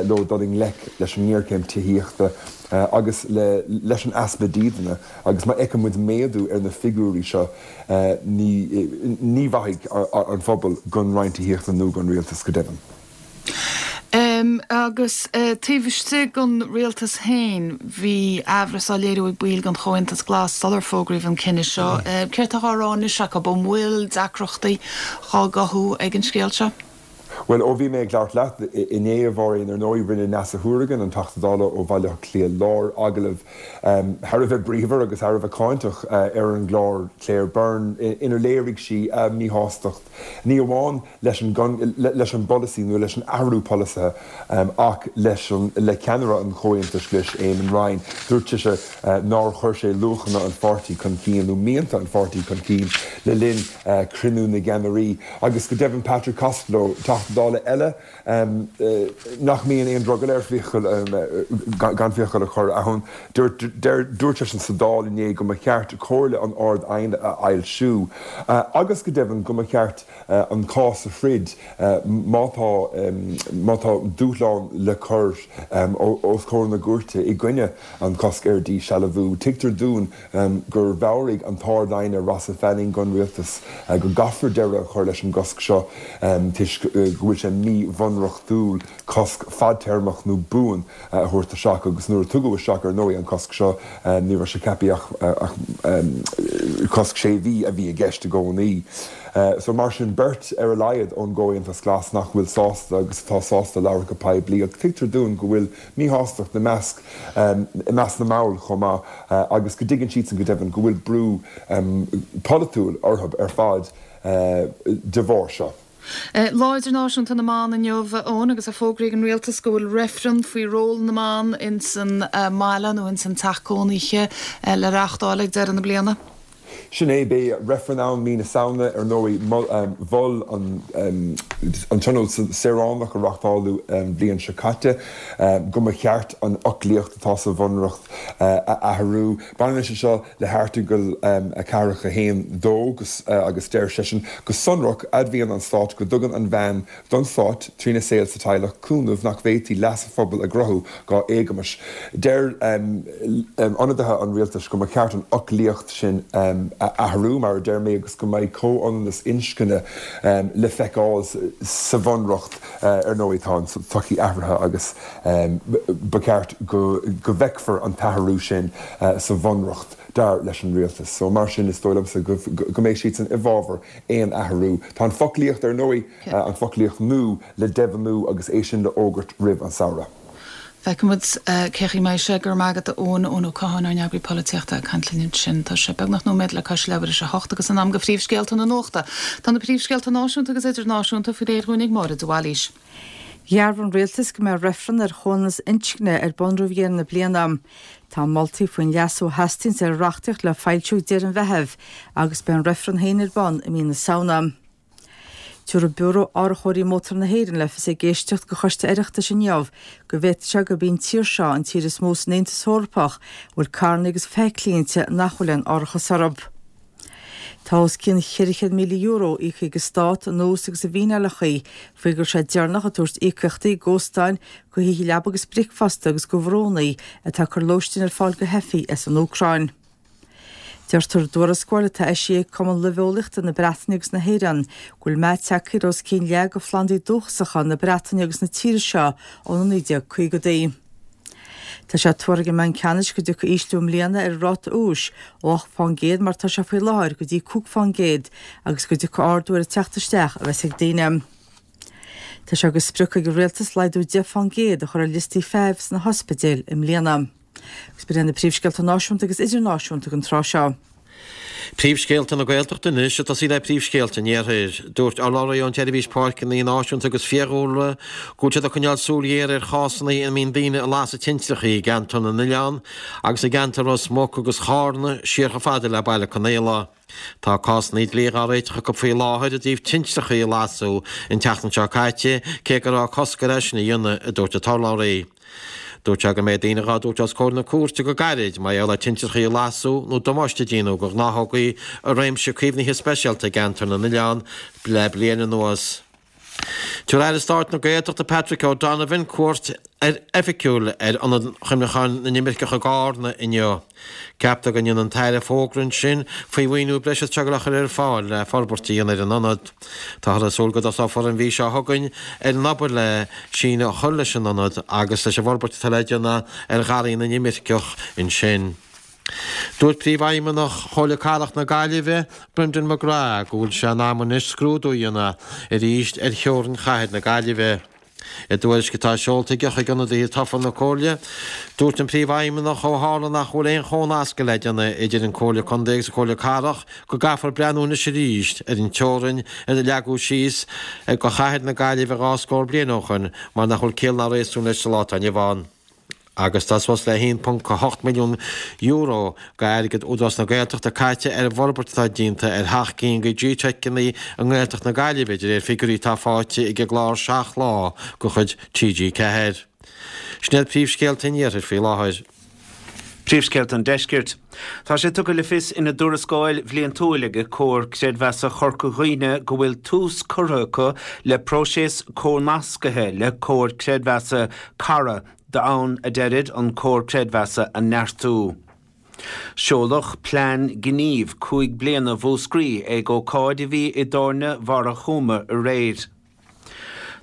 leo dul i ngleic leis an ngéarchéim tithíochta agus leis an easpa dídine agus má fheiceann muid méadú ar na figiúirí seo, ní mhaithfidh an phobal don Roinn Tithíochta nó don Rialtas go deimhin. Agus taobh istigh den rialtas féin, bhí aimhreas á léiriú ag baill den Chomhaontas Glas sular fógraíodh an cinneadh seo. Céard atá á rá anois acu? An bhfuil deacrachtaí á gcothú ag an scéal seo? Bhuel, ó bhí mé ag labhairt leat inné, a Mháirín, ar ndóigh, rinne Neasa Hourigan, an Teachta Dála ó Bhaile Átha Cliath Láir, agallamh thar a bheith bríomhar agus thar a bheith cáinteach ar an gclár Claire Byrne inar léirigh sí a míshástacht, ní amháin leis an leis an bpolasaí nó leis an athrú polasaithe ach leis an le ceannaire an Chomhaontais Ghlais, Eamon Ryan. Dúirt sise nár chuir sé luachanna an pháirtí chun cinn nó mianta an pháirtí chun cinn le linn cruinniú na gceannairí. Agus go deimhin Patrick Costello, Teachta Dála eile nach mbíonn aon drogall air fiacail gan fiacail a chur ann, dúirt dúirt seisean sa Dáil inné go mba cheart comhairle an Ard-Aighne a fhoilsiú agus go deimhin go mba cheart an cás a throid má tá má tá dúshlán le cur os comhair na gcúirte i gcoinne an cosc ar díshealbhú. Tuigtear dúinn gur mheabhraigh an tArd-Aighne Rossa Fanning don Rialtas go gcaithfear deireadh a chur leis an gcosc seo toisc go. go bhfuil sé míbhunreachtúil cosc fadtéarmach nó buan a thabhairt isteach agus nuair a tugadh isteach ar ndóigh an cosc seo ní raibh sé ceaptha ach cosc sé mhí a bhí i gceist i gcónaí. So mar sin beirt ar a laghad ón gComhaontas Glas nach bhfuil sásta agus atá sásta labhairt go poiblí ach tuigtear dúinn go bhfuil míshástacht i measc i measc na mball chomh maith agus go dtuigeann siadsan go deimhin go bhfuil brú polaitiúil orthu ar fad de bharr seo. Lá Idirnáisiúnta na mBan inniu, a Eoin, agus fógraíonn an rialtas go bhfuil reifreann faoi ról na mban ins an mbaile nó ins an teach cónaithe le reáchtáil ag deireadh na bliana. Sin é, beidh reifreann ann mí na Samhna, ar ndóigh. Mhol an Tionól Saoránach a reáchtáladh an bhliain seo caite go mba cheart an fhoclaíocht atá sa Bhunreacht a athrú. Baineann sé seo le hAirteagal 4 1, 2 agus deir seisean go sonrach, Admhaíonn an Stát go dtugann an bhean don Stát, trína saol sa teaghlach, cúnamh nach bhféadfaí leas an phobail a ghnóthú dá éagmais. Deir ionadaithe an rialtais go mba cheart an fhoclaíocht sin a athrú, mar a deir mé, agus go mbeidh comhionannas inscne le feiceáil sa Bhunreacht. Ar ndóigh, tá an tsochaí athraithe agus ba cheart go bhfeicfear an t-athrú sin sa Bhunreacht, dar leis an rialtas. So, mar sin, is dóigh liomsa go mbeidh siadsan i bhfabhar aon athrú. Tá an foclaíocht, ar ndóigh, an foclaíocht nua le deimhniú agus é sin le fhógairt roimh an samhradh. Feicfidh muid cén chaoi a mbeidh sé. Go raibh maith agat, a Eoin, Eoin Ó Catháin, ár n-eagraí polaitíochta, ag caint linn ansin. Tá sé beagnach nóiméad le cois leathuair tar éis a hocht agus in am do phríomhscéalta na nuachta. Tá na príomhscéalta náisiúnta agus idirnáisiúnta faoi réir dhúinn ag Máire de Bhailís. Dhearbhaigh an Rialtas go mbeidh reifreann ar chomhionannas inscne ar bun roimh dheireadh na bliana. Tá moltaí faoin leasú a theastaíonns ar an reachtaíocht le foilsiú ag deireadh an Mheithimh agus beidh an reifreann féin ar bun i mí na Samhna. Tabharfaidh Biúró Árachóirí Mótar na hÉireann le fios ag éisteacht do Choiste Oireachtais inniu go bhféadfadh sé gurb í an tír seo an tír is mó san Aontas Eorpach a bhfuil carranna agus feithiclí inti nach bhfuil aon árachas orthu. Tá os cionn €400,000 íoctha ag an Stát in ús agus i bhfíneálacha faoi go raibh sé deireanach ag tabhairt íocaíochtaí d'óstáin, do thithe leaba agus bricfeasta agus do bhrúnna atá ag cur lóistín ar fáil do theifigh as an Úcráin. Deirtear i dtuarascáil atá eisithe ag Cumann Luibheolaíochta na Breataine agus na hÉireann go bhfuil meath tagtha ar os cionn leath de phlandaí dúchasacha na Breataine agus na tíre seo ó na 1950idí. Tá sé tuartha ag an mBanc Ceannais go dtiocfaidh ísliú i mbliana ar an ráta úis ó 8% mar atá sé faoi láthair go dtí 5% agus go dtiocfaidh ardú ar an teacht isteach a bheas ag daoine. Tá sé de sprioc ag an Rialtas laghdú 10% a chur ar liostaí feithimh sna hospidéil i mbliana. Agus b'in iad na príomhscéalta náisiúnta agus idirnáisiúnta don tráth seo. Príomhscéalta na Gaeltachta anois, ag tosaí le príomhscéalta an Iarthair. Dúirt urlabhraí ón tSeirbhís Páirceanna Náisiúnta agus Fiadhúlra go bhfuil siad ag coinneáil súil ghéar ar chásanna ina mbíonn daoine ag lasadh tintreacha i gceantar na nOileán agus i gceantar Ros Muc agus Chárna siar chomh fada le Baile Conaola. Tá cásanna dlí dhá réiteach acu faoi láthair i dtaobh tintreacha a lasadh an tseachtain seo caite, cé go raibh cosc air é sin a dhéanamh, a dúirt an t-urlabhraí. Dúirt sé go mbeidh daoine dhá dtabhairt os comhair na cúirte go gairid mar gheall ar tintreacha a lasadh nó damáiste a déanamh do ghnáthógaí i réimse caomhnaithe speisialta i gceantar na nOileán le bliain anuas. Tabharfaidh Aire Stáit na Gaeltachta Patrick O'Donovan cuairt oifigiúil ar Ionad Chuimhneacháin na nImirceach i gCarna inniu. Ceaptar go ndéanfaidh an tAire fógra ansin faoi mhaoiniú breise atá le cur ar fáil le forbairt a dhéanamh ar an ionad. Táthar ag súil go dtosófar an mhí seo chugainn ar an obair le síneadh a chur leis an ionad agus leis an bhforbairt atá le déanamh ar Gharraí na nImirceach ansin. Dúirt Príomhfheidhmeannach Chomhairle Cathrach na Gaillimhe, Brendan McGrath, go bhfuil sé in am anois scrúdú a dhéanamh arís ar theorainn chathair na Gaillimhe. I dtuairisc atá seolta aige chuig ionadaithe tofa na Comhairle, dúirt an Príomhfheidhmeannach ó tharla nach bhfuil aon chónascadh le déanamh idir an Comhairle Contae agus an Comhairle Cathrach go gcaithfear breathnú anois arís ar an teorainn a leagadh síos do chathair na Gaillimhe dhá scór bliain ó shoin mar nach bhfuil ciall ná réasún leis sa lá atá inniu ann. Agus tá suas le €1.8 milliún d'airgead Údarás na Gaeltachta caite ar an bhforbairt atá déanta ar sheacht gcinn de G-Teiceanna i nGaeltacht na Gaillimhe, de réir figiúirí atá faighte ag an gclár 7 Lá de chuid TG4. Sin iad príomhscéalta an Iarthair faoi láthair. Príomhscéalta an Deiscirt. Tá sé tugtha le fios ina dtuarascáil bhliantúil ag Comhar Creidmheasa Chorca Dhuibhne go bhfuil tús curtha acu le próiseas comhnascaithe le Comhar Creidmheasa Cara d'fhonn, a deirid, an comhar creidmheasa a neartú. Seoladh plean gnímh 5 bliana Mhúscraí ag ócáid a bhí i dTábhairne Bharra Chúma aréir.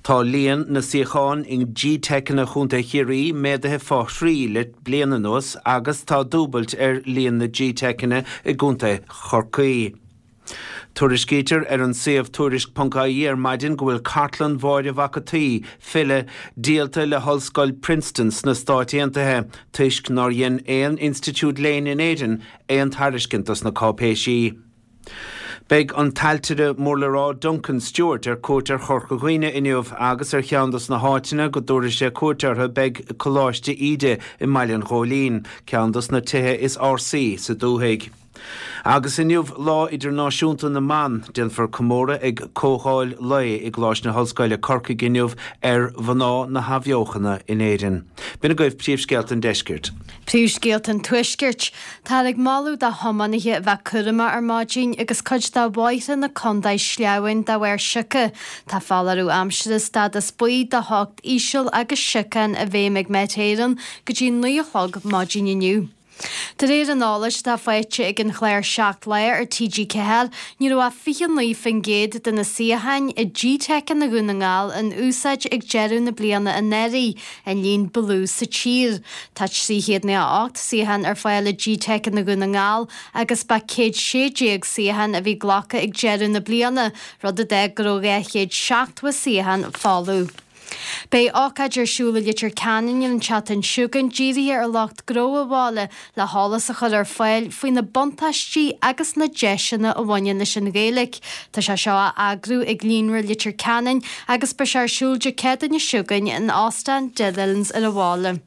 Tá líon na suíochán i GTeiceanna Chontae Chiarraí méadaithe fá thrí le bliain anuas agus tá dúbailt ar líon na GTeiceanna i gContae Chorcaí. Tuairiscítear ar an suíomh Tuairisc.ie ar maidin go bhfuil cartlann Mháire Mhac a' tSaoi, file, díolta le hOllscoil Princeton sna Stáit Aontaithe toisc nár dhein aon institiúid léinn in Éirinn aon tairiscint dos na cáipéisí. Beidh an t-ailtire mór le rá Duncan Stewart ar cuairt ar Chorca Dhuibhne inniu agus ar cheann dos na háiteanna go dtabharfaidh sé cuairt orthu beidh Coláiste Íde i mBaile an Ghóilín, ceann dos na tithe is ársaí sa dúthaigh. Agus inniu Lá Idirnáisiúnta na mBan, déanfar comóradh ag comhdháil lae i gColáiste na hOllscoile, Corcaigh inniu ar mhná na hAthbheochana in Éirinn. B'in agaibh príomhscéalta an deiscirt. Príomhscéalta an Tuaiscirt. Táthar ag moladh do thiománaithe a bheith cúramach ar maidin agus cuid de bhóithre na contae sleamhain de bharr sioctha. Tá foláireamh aimsire stádas buí do theocht íseal agus siocán i bhfeidhm ag Met Éireann go dtí 9 a chlog maidin inniu. De réir an eolais atá faighte ag an chlár 7 Lá ar TG4, ní raibh ach 29% de na suíocháin i GTeiceanna Dhún na nGall in úsáid ag deireadh na bliana anuraidh, an líon ba lú sa tír. Tá 398 suíochán ar fáil i GTeiceanna Dhún na nGall agus ba 116 suíochán a bhí glactha ag deireadh na bliana, rud a d'fhág go raibh 270 suíochán folamh. Beidh ócáid ar siúl i Leitir Ceanainn an tseachtain seo chugainn dírithe ar lucht gnó an bhaile le heolas a chur ar fáil faoi na buntáistí agus na deiseanna a bhaineann leis an Ghaeilge. Tá sé seo á eagrú ag Líonra Leitir Ceanainn agus beidh sé ar siúl Dé Céadaoine seo chugainn in Óstán Dillon's ar an bhaile.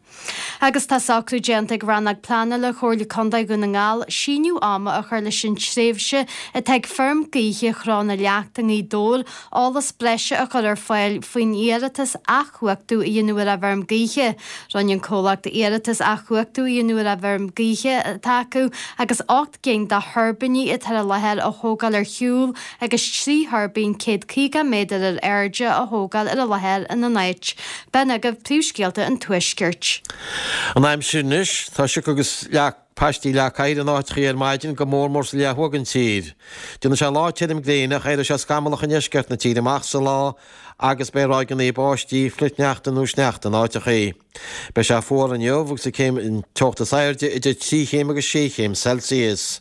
Agus tá socrú déanta ag Rannóg Pleanála Chomhairle Contae Dhún na nGall síneadh ama a chur leis an tréimhse atá ag Feirm Gaoithe Chró na Leacht i nGaoth Dobhair eolas breise a chur ar fáil faoin iarratas athchumhachtú a dhéanamh ar an bhfeirm gaoithe. Rinne an comhlacht iarratas athchumhachtú a dhéanamh ar an bhfeirm gaoithe atá acu agus 8 gcinn de thuirbíní atá ar an láthair a thógáil ar shiúl agus 3 thuirbín 150 méadar ar airde a thógáil ar an láthair ina n-áit. B'in agaibh príomhscéalta an Tuaiscirt. An aimsir anois, tá sioc agus leac, paistí leac oighir in áiteachaí ar maidin, go mór mór sa leath thuaidh den tír. Déanfaidh sé lá tirim gréine ach éireoidh sé scamallach i ndeisceart na tíre amach sa lá agus beidh ráigeanna báistí, flichshneachta nó sneachta in áiteachaí. Beidh sé fuar inniu agus an céim an teocht is airde idir 3 chéim agus 6 chéim Celsius.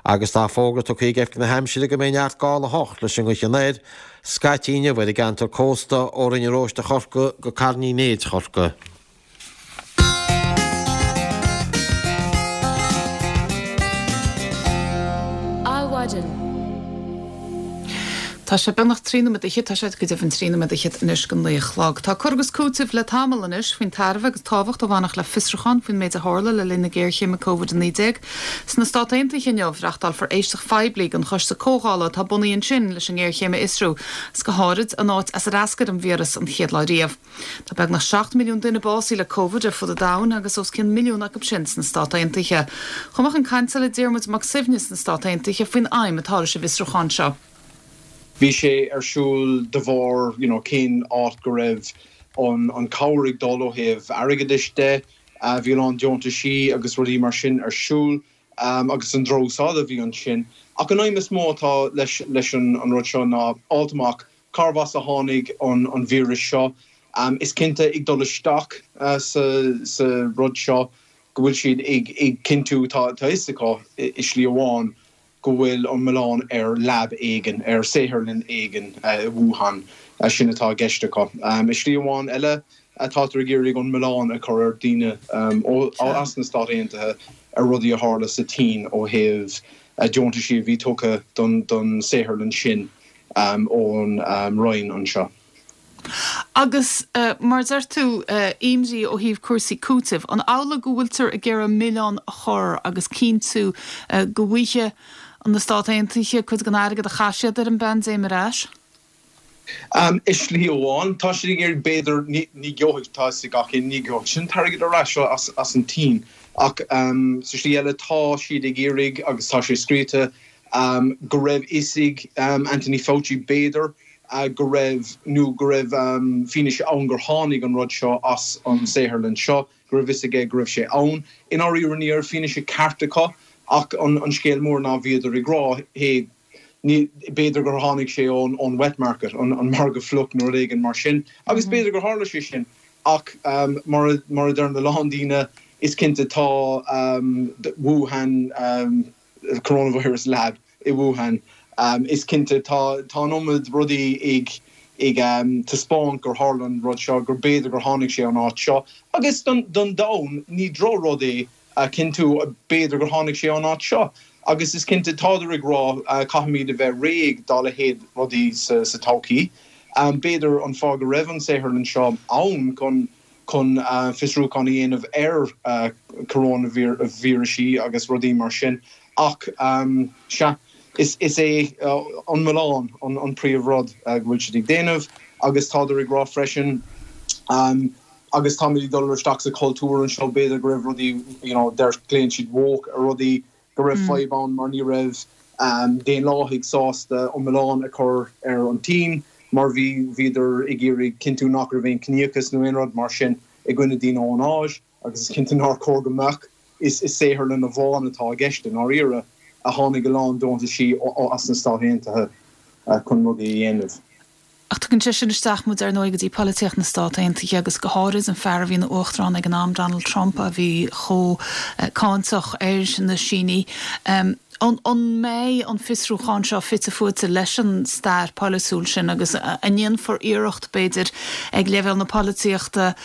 Agus tá fógra tugtha ag Oifig na hAimsire go mbeidh neart gála 8 leis an ngaoth anoir scaití inniu ar an gceantar cósta ó Rinn an Róiste Chorcaí go Carn Uí Néid Chorcaí. Adhmhaidin. Tá sé beagnach 13 nóiméad fhichead, tá sé go deimhin 13 nóiméad fhichead anois go 9 a chlog. Tá cur agus cúiteamh le tamall anois faoin tairbhe agus tábhacht a bhainfeadh le fiosrúchán faoin méid a tharla le linn na géarchéime Covid-19. Sna Stát Aontaithe inniu, reachtálfar éisteacht phoiblí don choiste comhdhála atá bunaithe ansin leis an ngéarchéim a fhiosrú, agus go háirid an áit as ar eascair an víreas an chéad lá riamh. Tá beagnach 7 milliún duine básaithe le Covid ar fud an domhain agus os cionn milliún acu sin sna Stát Aontaithe. Chuaigh mé chun cainte le Diarmuid Mac Suibhne sna Stát Aontaithe faoin aidhm atá leis an bhfiosrúchán seo. Bhí sé ar siúl de bharr you know cén áit go raibh an an cabhair ag dul ó thaobh airgeadais de. Bhí a lán deontaisí agus rudaí mar sin ar siúl agus an drochúsáid a bhí ansin. Ach an aidhm is mó atá leis leis an an rud seo ná fháilt amach cárbh as a tháinig an an víreas seo. Is cinnte ag dul isteach sa sa rud seo go bhfuil siad ag ag cinntiú tá tá fhios acu i slí amháin go bhfuil an milleán ar lab éigin, ar saotharlann éigin i Wuhan. Sin atá i gceist acu. I slí amháin eile, tátar ag iarraidh an milleán a chur ar daoine as na Stáit Aontaithe ar rudaí a tharla sa tSín ó thaobh deontaisí a bhí tugtha don saotharlann sin ón Roinn anseo. Agus mar a deir tú, imní ó thaobh cúrsaí cúitimh, an amhlaidh go bhfuiltear ag iarraidh milleán a chur agus cinntiú go bhfaighidh na Stáit Aontaithe cuid den airgead a chaith siad ar an bpaindéim ar ais? I slí amháin, tá siad ag iarraidh, b'fhéidir, ní gheobhaidh, tá fhios ag gach éinne, ní gheobhaidh siad an t-airgead ar ais as an tSín. Ach sa slí eile, tá siad ag iarraidh, agus tá sé scríofa, go raibh fhios ag Anthony Fauci, b'fhéidir, go raibh, nó go raibh fianaise ann gur tháinig an rud seo as an saotharlann seo, go raibh fhios aige go raibh sé ann. I ndáiríre ní raibh fianaise ceart acu ach an scéal mór ná bhíodar ag rá, hey,. Ní, b'fhéidir gur tháinig sé ón, ón wet market, an, an margadh fliuch nó rud éigin mar sin, agus b'fhéidir gur tharla sé sin, ach mar a, mar a deireann a lán daoine, is cinnte tá Wuhan Coronavirus Lab i Wuhan, is cinnte tá, tá an iomad rudaí ag, ag taispeáint gur tharla an rud seo, gur b'fhéidir gur tháinig sé ón áit seo, agus don, don domhan, ní droch-rud é a chinntiú, b'fhéidir gur tháinig sé ón áit seo. Agus is cinnte, tádar ag rá, caithfimid a bheith réidh dá leithéid rudaí sa todhchaí. B'fhéidir an fáth go raibh an saotharlann seo ann chun chun fiosrúchán a dhéanamh ar coróinvírisí agus rudaí mar sin. Ach sea, is é an milleán an príomh rud go bhfuil siad ag déanamh agus tádar ag rá freisin, Agus táimid ag dul isteach sa chultúr anseo, b'fhéidir go raibh rudaí, you know, deir, glaonn siad woke ar rudaí, go raibh fadhb ann mar ní raibh Daonlathaigh sásta an milleán a chur ar an tSín mar bhí, bhíodar ag iarraidh cinntiú nach raibh aon ciníochas nó aon rud mar sin i gcoinne daoine ón Áis agus is cinnte nár chóir go mbeadh. Is i saotharlann amháin atá i gceist i ndáiríre, a tháinig a lán deontaisí as na Stáit Aontaithe chun rudaí a dhéanamh. Ach tugann sé sin isteach muid, ar ndóigh, go dtí polaitíocht na Stát Aontaithe agus go háirid an fear a bhí ina uachtarán ag an am, Donald Trump, a bhí chomh cáinteach ar na Sínigh. An mbeidh an fiosrúchán seo fite fuaite leis an stair pholaitiúil sin agus an ndéanfar iarracht, b'fhéidir, ag leibhéal na polaitíochta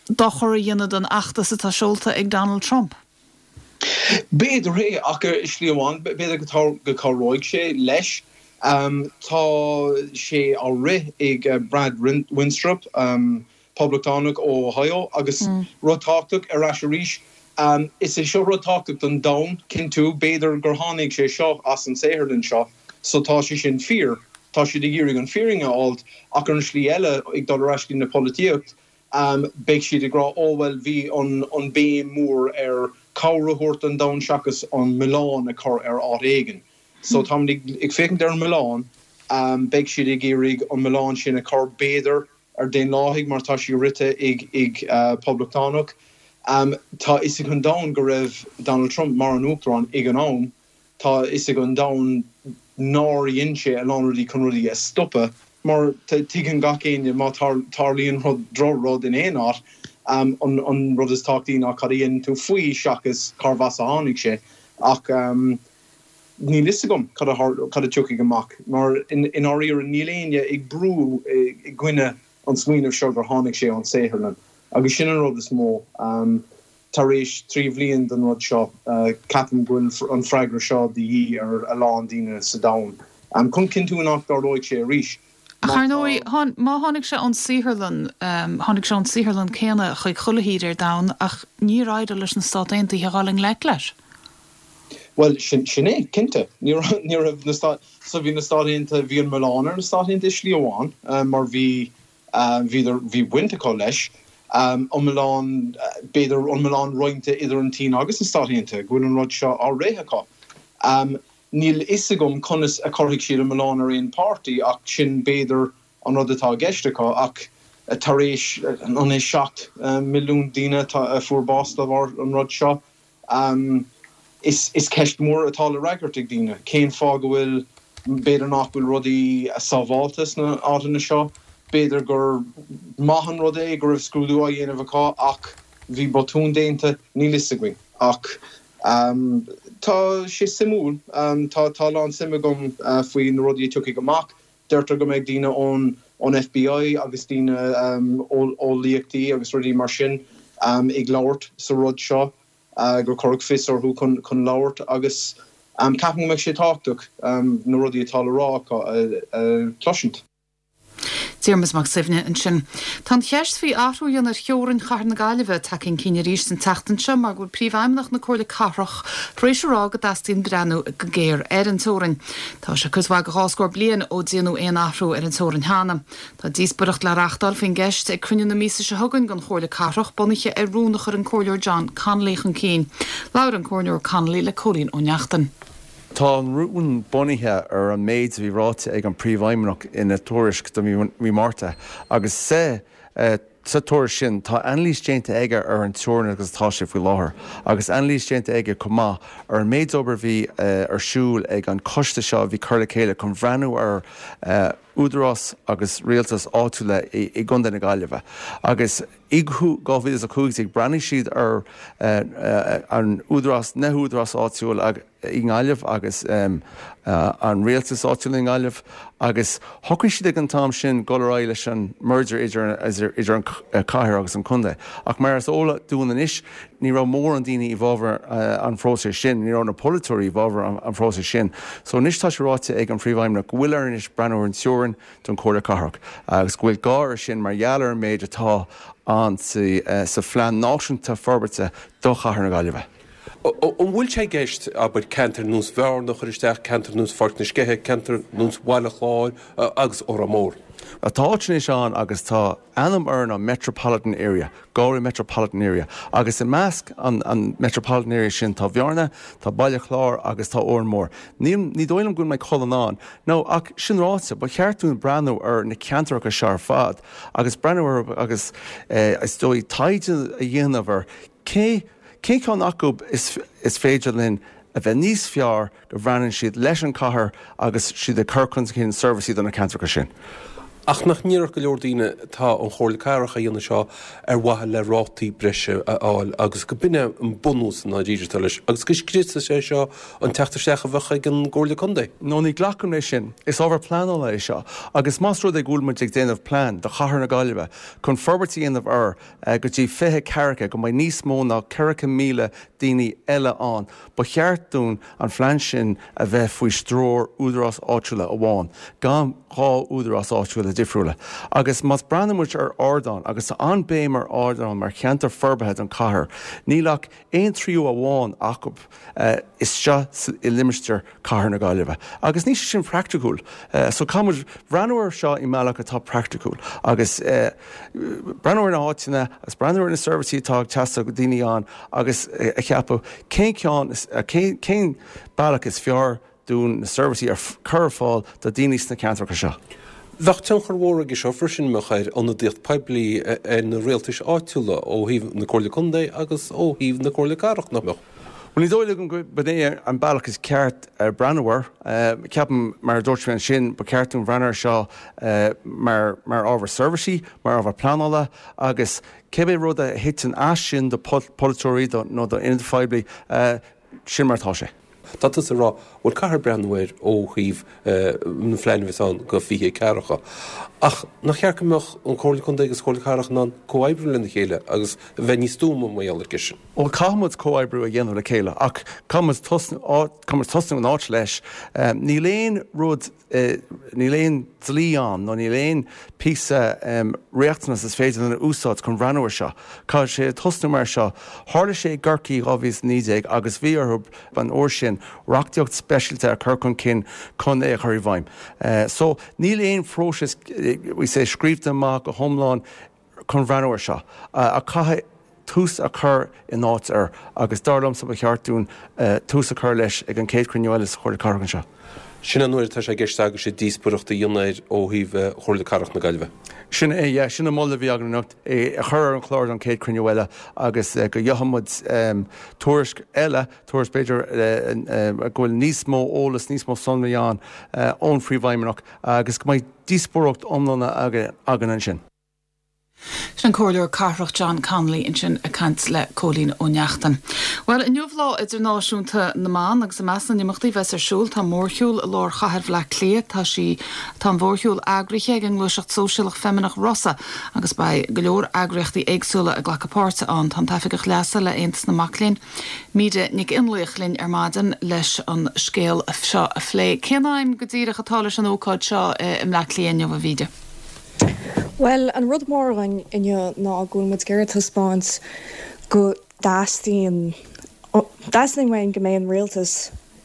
dochar a dhéanamh don fheachtas atá seolta ag Donald Trump? B'fhéidir é, ach ar shlí amháin, b'fhéidir go cabhróidh sé leis. Tá sé á rith ag Brad Wenstrup, Poblachtánach ó Ohio, agus rud tábhachtach, ar ais arís, is é seo rud tábhachtach don domhan, cinntiú, b'fhéidir gur tháinig sé seo as an saotharlann seo, so tá sé sin fíor, tá siad ag iarraidh an fírinne a fháilt, ach ar an slí eile, ag dul ar ais go dtí na polaitíocht, Beidh siad ag rá, 'Ó bhuel, bhí an béim mór ar cabhair a thabhairt don domhan seachas an milleán a chur ar áit éigin. So táimid ag féachaint ar an milleán, beidh siad ag iarraidh an milleán sin a chur, b'fhéidir, ar Daonlathaigh mar tá sé rite ag Poblachtánach. Tá a fhios ag an domhan go raibh Donald Trump mar an Uachtarán ag an am. Tá a fhios ag an domhan nár dhein sé a lán rudaí chun rudaí a stopadh, mar tuigeann gach éinne má tarlaíonn rud, droch-rud in aon áit, an rud is tábhachtaí ná cad a dhéanann tú faoi seachas cárbh as a tháinig sé. Ach níl fhios agam cad a cad a tiocfaidh amach, mar i ndáiríre níl éinne ag brú i gcoinne an smaoineamh seo gur tháinig sé ón saotharlann. Agus sin an rud is mó. Tar éis 3 bhliain den rud seo, ceapaim go bhfuil an freagra seo de dhíth ar a lán daoine sa domhan chun cinntiú nach dtarlóidh sé arís. Ach ar ndóigh, má tháinig sé ón saotharlann, tháinig sé ón saotharlann céanna chuig chuile thír ar domhan ach níor éirigh leis na Stát Aontaithe a dhul i ngleic leis. Bhuel, sin é, cinnte. Ní raibh na Stáit, so bhí na Stáit Aontaithe, bhí an milleán ar na Stáit Aontaithe i slí amháin mar bhí, Bhíodar, bhí baint acu leis. An milleán, b'fhéidir, an milleán roinnte idir an tSín agus na Stáit Aontaithe, go bhfuil an rud seo á rith acu. Níl fhios agam conas a chuirfidh siad an milleán ar aon páirtí ach sin b'fhéidir an rud atá i gceist acu. Ach tar éis, an é 7 milliún daoine a fuair bás de bharr an rud seo, Is ceist mhór atá le fhreagairt ag daoine, cén fáth go bhfuil, b'fhéidir nach bhfuil rudaí sábháilte sna áiteanna seo, b'fhéidir gur maith an rud é go raibh scrúdú á dhéanamh acu ach bhí botún déanta, níl fhios againn. Ach tá sé suimiúil, tá a lán suim agam faoi na rudaí a tiocfaidh amach. Deirtear go mbeidh daoine ón ón FBI agus daoine eolaíochtaí agus rudaí mar sin ag labhairt sa rud seo, gur cuireadh fios orthu chun labhairt agus ceapaim go mbeidh sé tábhachtach na rudaí atá le rá acu a chloisint. Diarmuid Mac Suibhne ansin. Tá an cheist faoi athrú a dhéanamh ar theorainn chathair na Gaillimhe tagtha chun cinn arís an tseachtain seo mar go bhfuil Príomhfheidhmeannach na Comhairle Cathrach tar éis a rá go dteastaíonn breathnú go géar ar an teorainn. Tá sé cuid mhaith de dhá scór bliain ó déanadh aon athrú ar an teorainn cheana. Tá díospóireacht le reachtáil faoin gceist ag cruinniú na míosa seo chugainn den Chomhairle Cathrach, bunaithe ar rún a chuir an Comhairleoir John Connolly chun cinn. Labhair an Comhairleoir Connolly le Cóilín Ó Neachtain. Tá an rún bunaithe ar an méid a bhí ráite ag an Príomhfheidhmeannach ina tuairisc do mhí Márta agus sa. Sa tuairisc sin, tá anailís déanta aige ar an teorainn agus atá sé faoi láthair, agus anailís déanta aige chomh maith ar an méid obair a bhí ar siúl ag an choiste seo a bhí curtha le chéile chun bhreathnú ar údarás agus rialtas áitiúla i gContae na Gaillimhe. Agus i 2015 breathnaigh siad ar an údarás, na húdaráis áitiúil i nGaillimh agus an rialtas áitiúil i nGaillimh agus shocraigh siad ag an t-am sin dul ar aghaidh leis an merger idir an cathair agus an contae. Ach mar is eol dúinn anois, ní raibh mórán daoine i bhfabhar an phróisis sin, ní raibh na polaiteoirí i bhfabhar an phróisis sin. So anois tá sé ráite ag an Phríomhfheidhmeannach go bhfuil air anois breathnú ar an teorainn don Chomhairle Cathrach agus go bhfuil gá air sin mar gheall ar an méid atá ann sa Phlean Náisiúnta Forbartha do Chathair na Gaillimhe. An bhfuil sé i gceist, abair, ceantair ar nós Bhearna a chur isteach, ceantair ar nós Pháirc na Sceiche, ceantair ar nós Bhaile Chláir agus Órán Mór? Tá áit anois ann agus tá ainm air ná Metropolitan Area, Galway Metropolitan Area, agus i measc an Metropolitan Area sin tá Bearna, tá Baile Chláir agus tá Órán Mór. Níl, ní dóigh liom go bhfuil Maigh Cuilinn ann. No, ach sin ráite, ba cheart dúinn breathnú ar na ceantracha seo ar fad agus breathnú orthu agus is dóigh taighde a dhéanamh ar cé Cén ceann acu is féidir linn a bheith níos fearr go bhreathnaíonn siad leis an chathair agus siad ag cur chun cinn seirbhísí do na ceantracha sin? Ach nach ndéarfadh go leor daoine tá an Chomhairle Cathrach á dhéanamh seo ar mhaithe le rátaí breise a fháil agus go b'in é an bunús i ndáiríre atá leis agus go scriosfaidh sé seo an teacht isteach a bheadh ag an gComhairle Contae? No, ní ghlacaim leis sin. Is ábhar pleanála é seo agus más rud é go bhfuil muid ag déanamh plean do chathair na Gaillimhe chun forbairt a dhéanamh air go dtí 20 ceathracha go mbeidh níos mó ná 4,000 daoine eile ann. Ba cheart dúinn an phlean sin a bheith faoi stiúir údarás áitiúla amháin, gan 2 údarás áitiúla difriúla. Agus más breathnaíonn muid ar Ardán, agus tá an-béim ar Ardán mar cheantar forbartha don chathair, níl ach aon tríú amháin acu isteach i limistéar Cathair na Gaillimhe. Agus níl sé sin praiticiúil. So caithfidh muid breathnú air seo i mbealach atá praiticiúil agus breathnú ar na háiteanna agus breathnú ar na seirbhísí atá ag teastáil do daoine ann agus a cheapadh cén ceann, cén bealach is fearr dúinn na seirbhísí a chur ar fáil do daoine sna ceantracha seo. Bheadh tionchar mhór aige seo freisin, mbeadh, ar ionadaíocht poiblí ar na rialtais áitiúla ó thaobh na Comhairle Contae agus ó thaobh na Comhairle Cathrach, nach mbeadh? Bhuel, ní dóigh liom go b'in é an bealach is ceart breathnú air. Ceapaim, mar a dúirt mé ansin, ba cheart dúinn breathnú air seo mar ábhar seirbhísí, mar ábhar pleanála agus cibé rud a thiteann as sin do pholaiteoirí nó d'ionadaithe phoiblí, Sin mar atá sé. Tá tusa ag rá, bhuel caithfear breathnú air ó thaobh na phlean a bheas ann go 20 ceathracha. Ach nach cheart go mbeadh an Comhairle Contae agus Comhairle Cathrach in ann comhoibriú lena chéile agus a bheith níos stuama mar gheall ar sin? Bhuel caithfidh muid comhoibriú a dhéanamh le chéile ach caithfidh muid tosnú, caithfidh muid tosnú in áit leis. Níl aon rud Níl aon dlí ann nó níl aon píosa riachtanas is féidir linn a úsáid chun bhreathnú ar seo. Caithfidh sé tosnú mar seo. Tharla sé i gCorcaigh 2019 agus bhí orthu an uair sin reachtaíocht speisialta a chur chun cinn chun é a chur i bhfeidhm. So níl aon phróiseas we say scríobhta amach go hiomlán chun bhreathnú ar seo ach caithfidh tús a chur in áit air agus dar liomsa ba cheart dúinn tús a chur leis ag an chéad chruinniú eile sa Chomhairle Cathrach anseo. Sin an uair atá sé i gceist agaibhse díospóireacht a dhéanamh air ó thaobh Chomhairle Cathrach na Gaillimhe. Sin é, yeah, sin an moladh a bhí againn anocht, é a chur ar an chlár don chéad chruinniú eile agus go gheobhaidh muid tuairisc eile, tuairisc b'fhéidir go bhfuil níos mó eolas, níos mó sonraí ann ón Phríomhfheidhmeannach agus go mbeidh díospóireacht iomlán againn ansin. Sin an Comhairleoir Cathrach John Connolly ansin ag caint le Cóilín Ó Neachtain. Bhuel, inniu Lá Idirnáisiúnta na mBan agus i measc na n-imeachtaí a bheas ar siúl tá mórshiúl i lár chathair Bhaile Átha Cliath. Tá sí, tá an mhórshiúl eagraithe ag an ngluaiseacht sóisialach feimineach Rosa agus beidh go leor eagraíochtaí éagsúla ag glacadh páirte ann. Tá an tOifigeach Leasa le Aontas na Mac Léinn, Míde Nic Fhionnlaoich linn ar maidin leis an scéal seo a phlé. Cén aidhm go díreach atá leis an ócáid seo i mBleá Cliath inniu, a Mhíde? Bhuel, an rud mór againn inniu ná go bhfuil muid ag iarraidh taispeáint go dteastaíonn, teastaíonn uainn go mbeidh an rialtas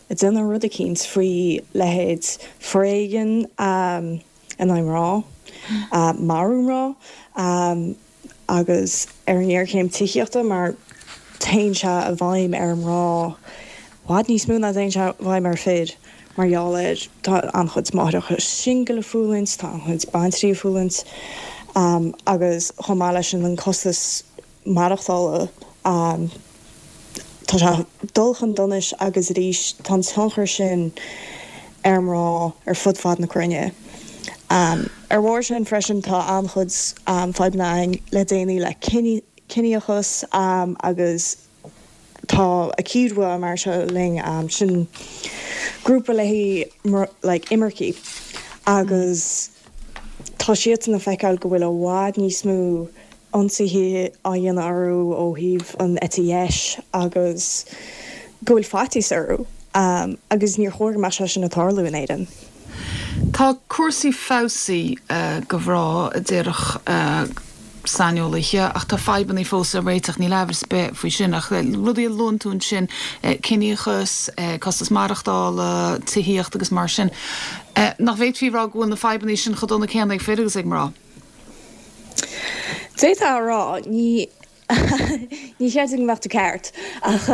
ag déanamh rud eicínt faoi leithéid foréigean in aghaidh mná, marú mná. agus ar an ngéarchéim tithíochta mar téann sé i bhfeidhm ar mhná i bhfad níos mó ná téann sé i bhfeidhm ar fir mar gheall ar tá an-chuid máithreacha singil ag fulaingt, tá an-chuid baintrí ag fulaingt. Agus chomh maith leis sin an costas maireachtála, tá sé ag dul chun donais agus arís tá an tionchar sin ar mná ar fud fad na cruinne. Ar bharr sin freisin tá an-chuid fadhbanna againn le déanaí le ciníochas agus tá AkiDwA mar seo linn, sin grúpa le haghaidh like imircigh agus tá siadsan ag feiceáil go bhfuil i bhfad níos mó ionsaithe á dhéanamh orthu ó thaobh an eite dheis agus go bhfuil faitíos orthu agus níor chóir go mbeadh sé sin ag tarlú in Éirinn. Tá cúrsaí feabhsaithe do mhná, a déarfadh saineolaithe, ach tá fadhbanna fós le réiteach, níl amhras ar bith faoi sin. Ach rudaí a luann tú ansin, ciníochas, costas maireachtála, tithíocht agus mar sin, nach bhféadfaí a rá go bhfuil na fadhbanna sin chomh dona céanna ag fir agus ag mná? D'fhéadfá a rá, ní ní chreidim go mbeadh tú ceart, ach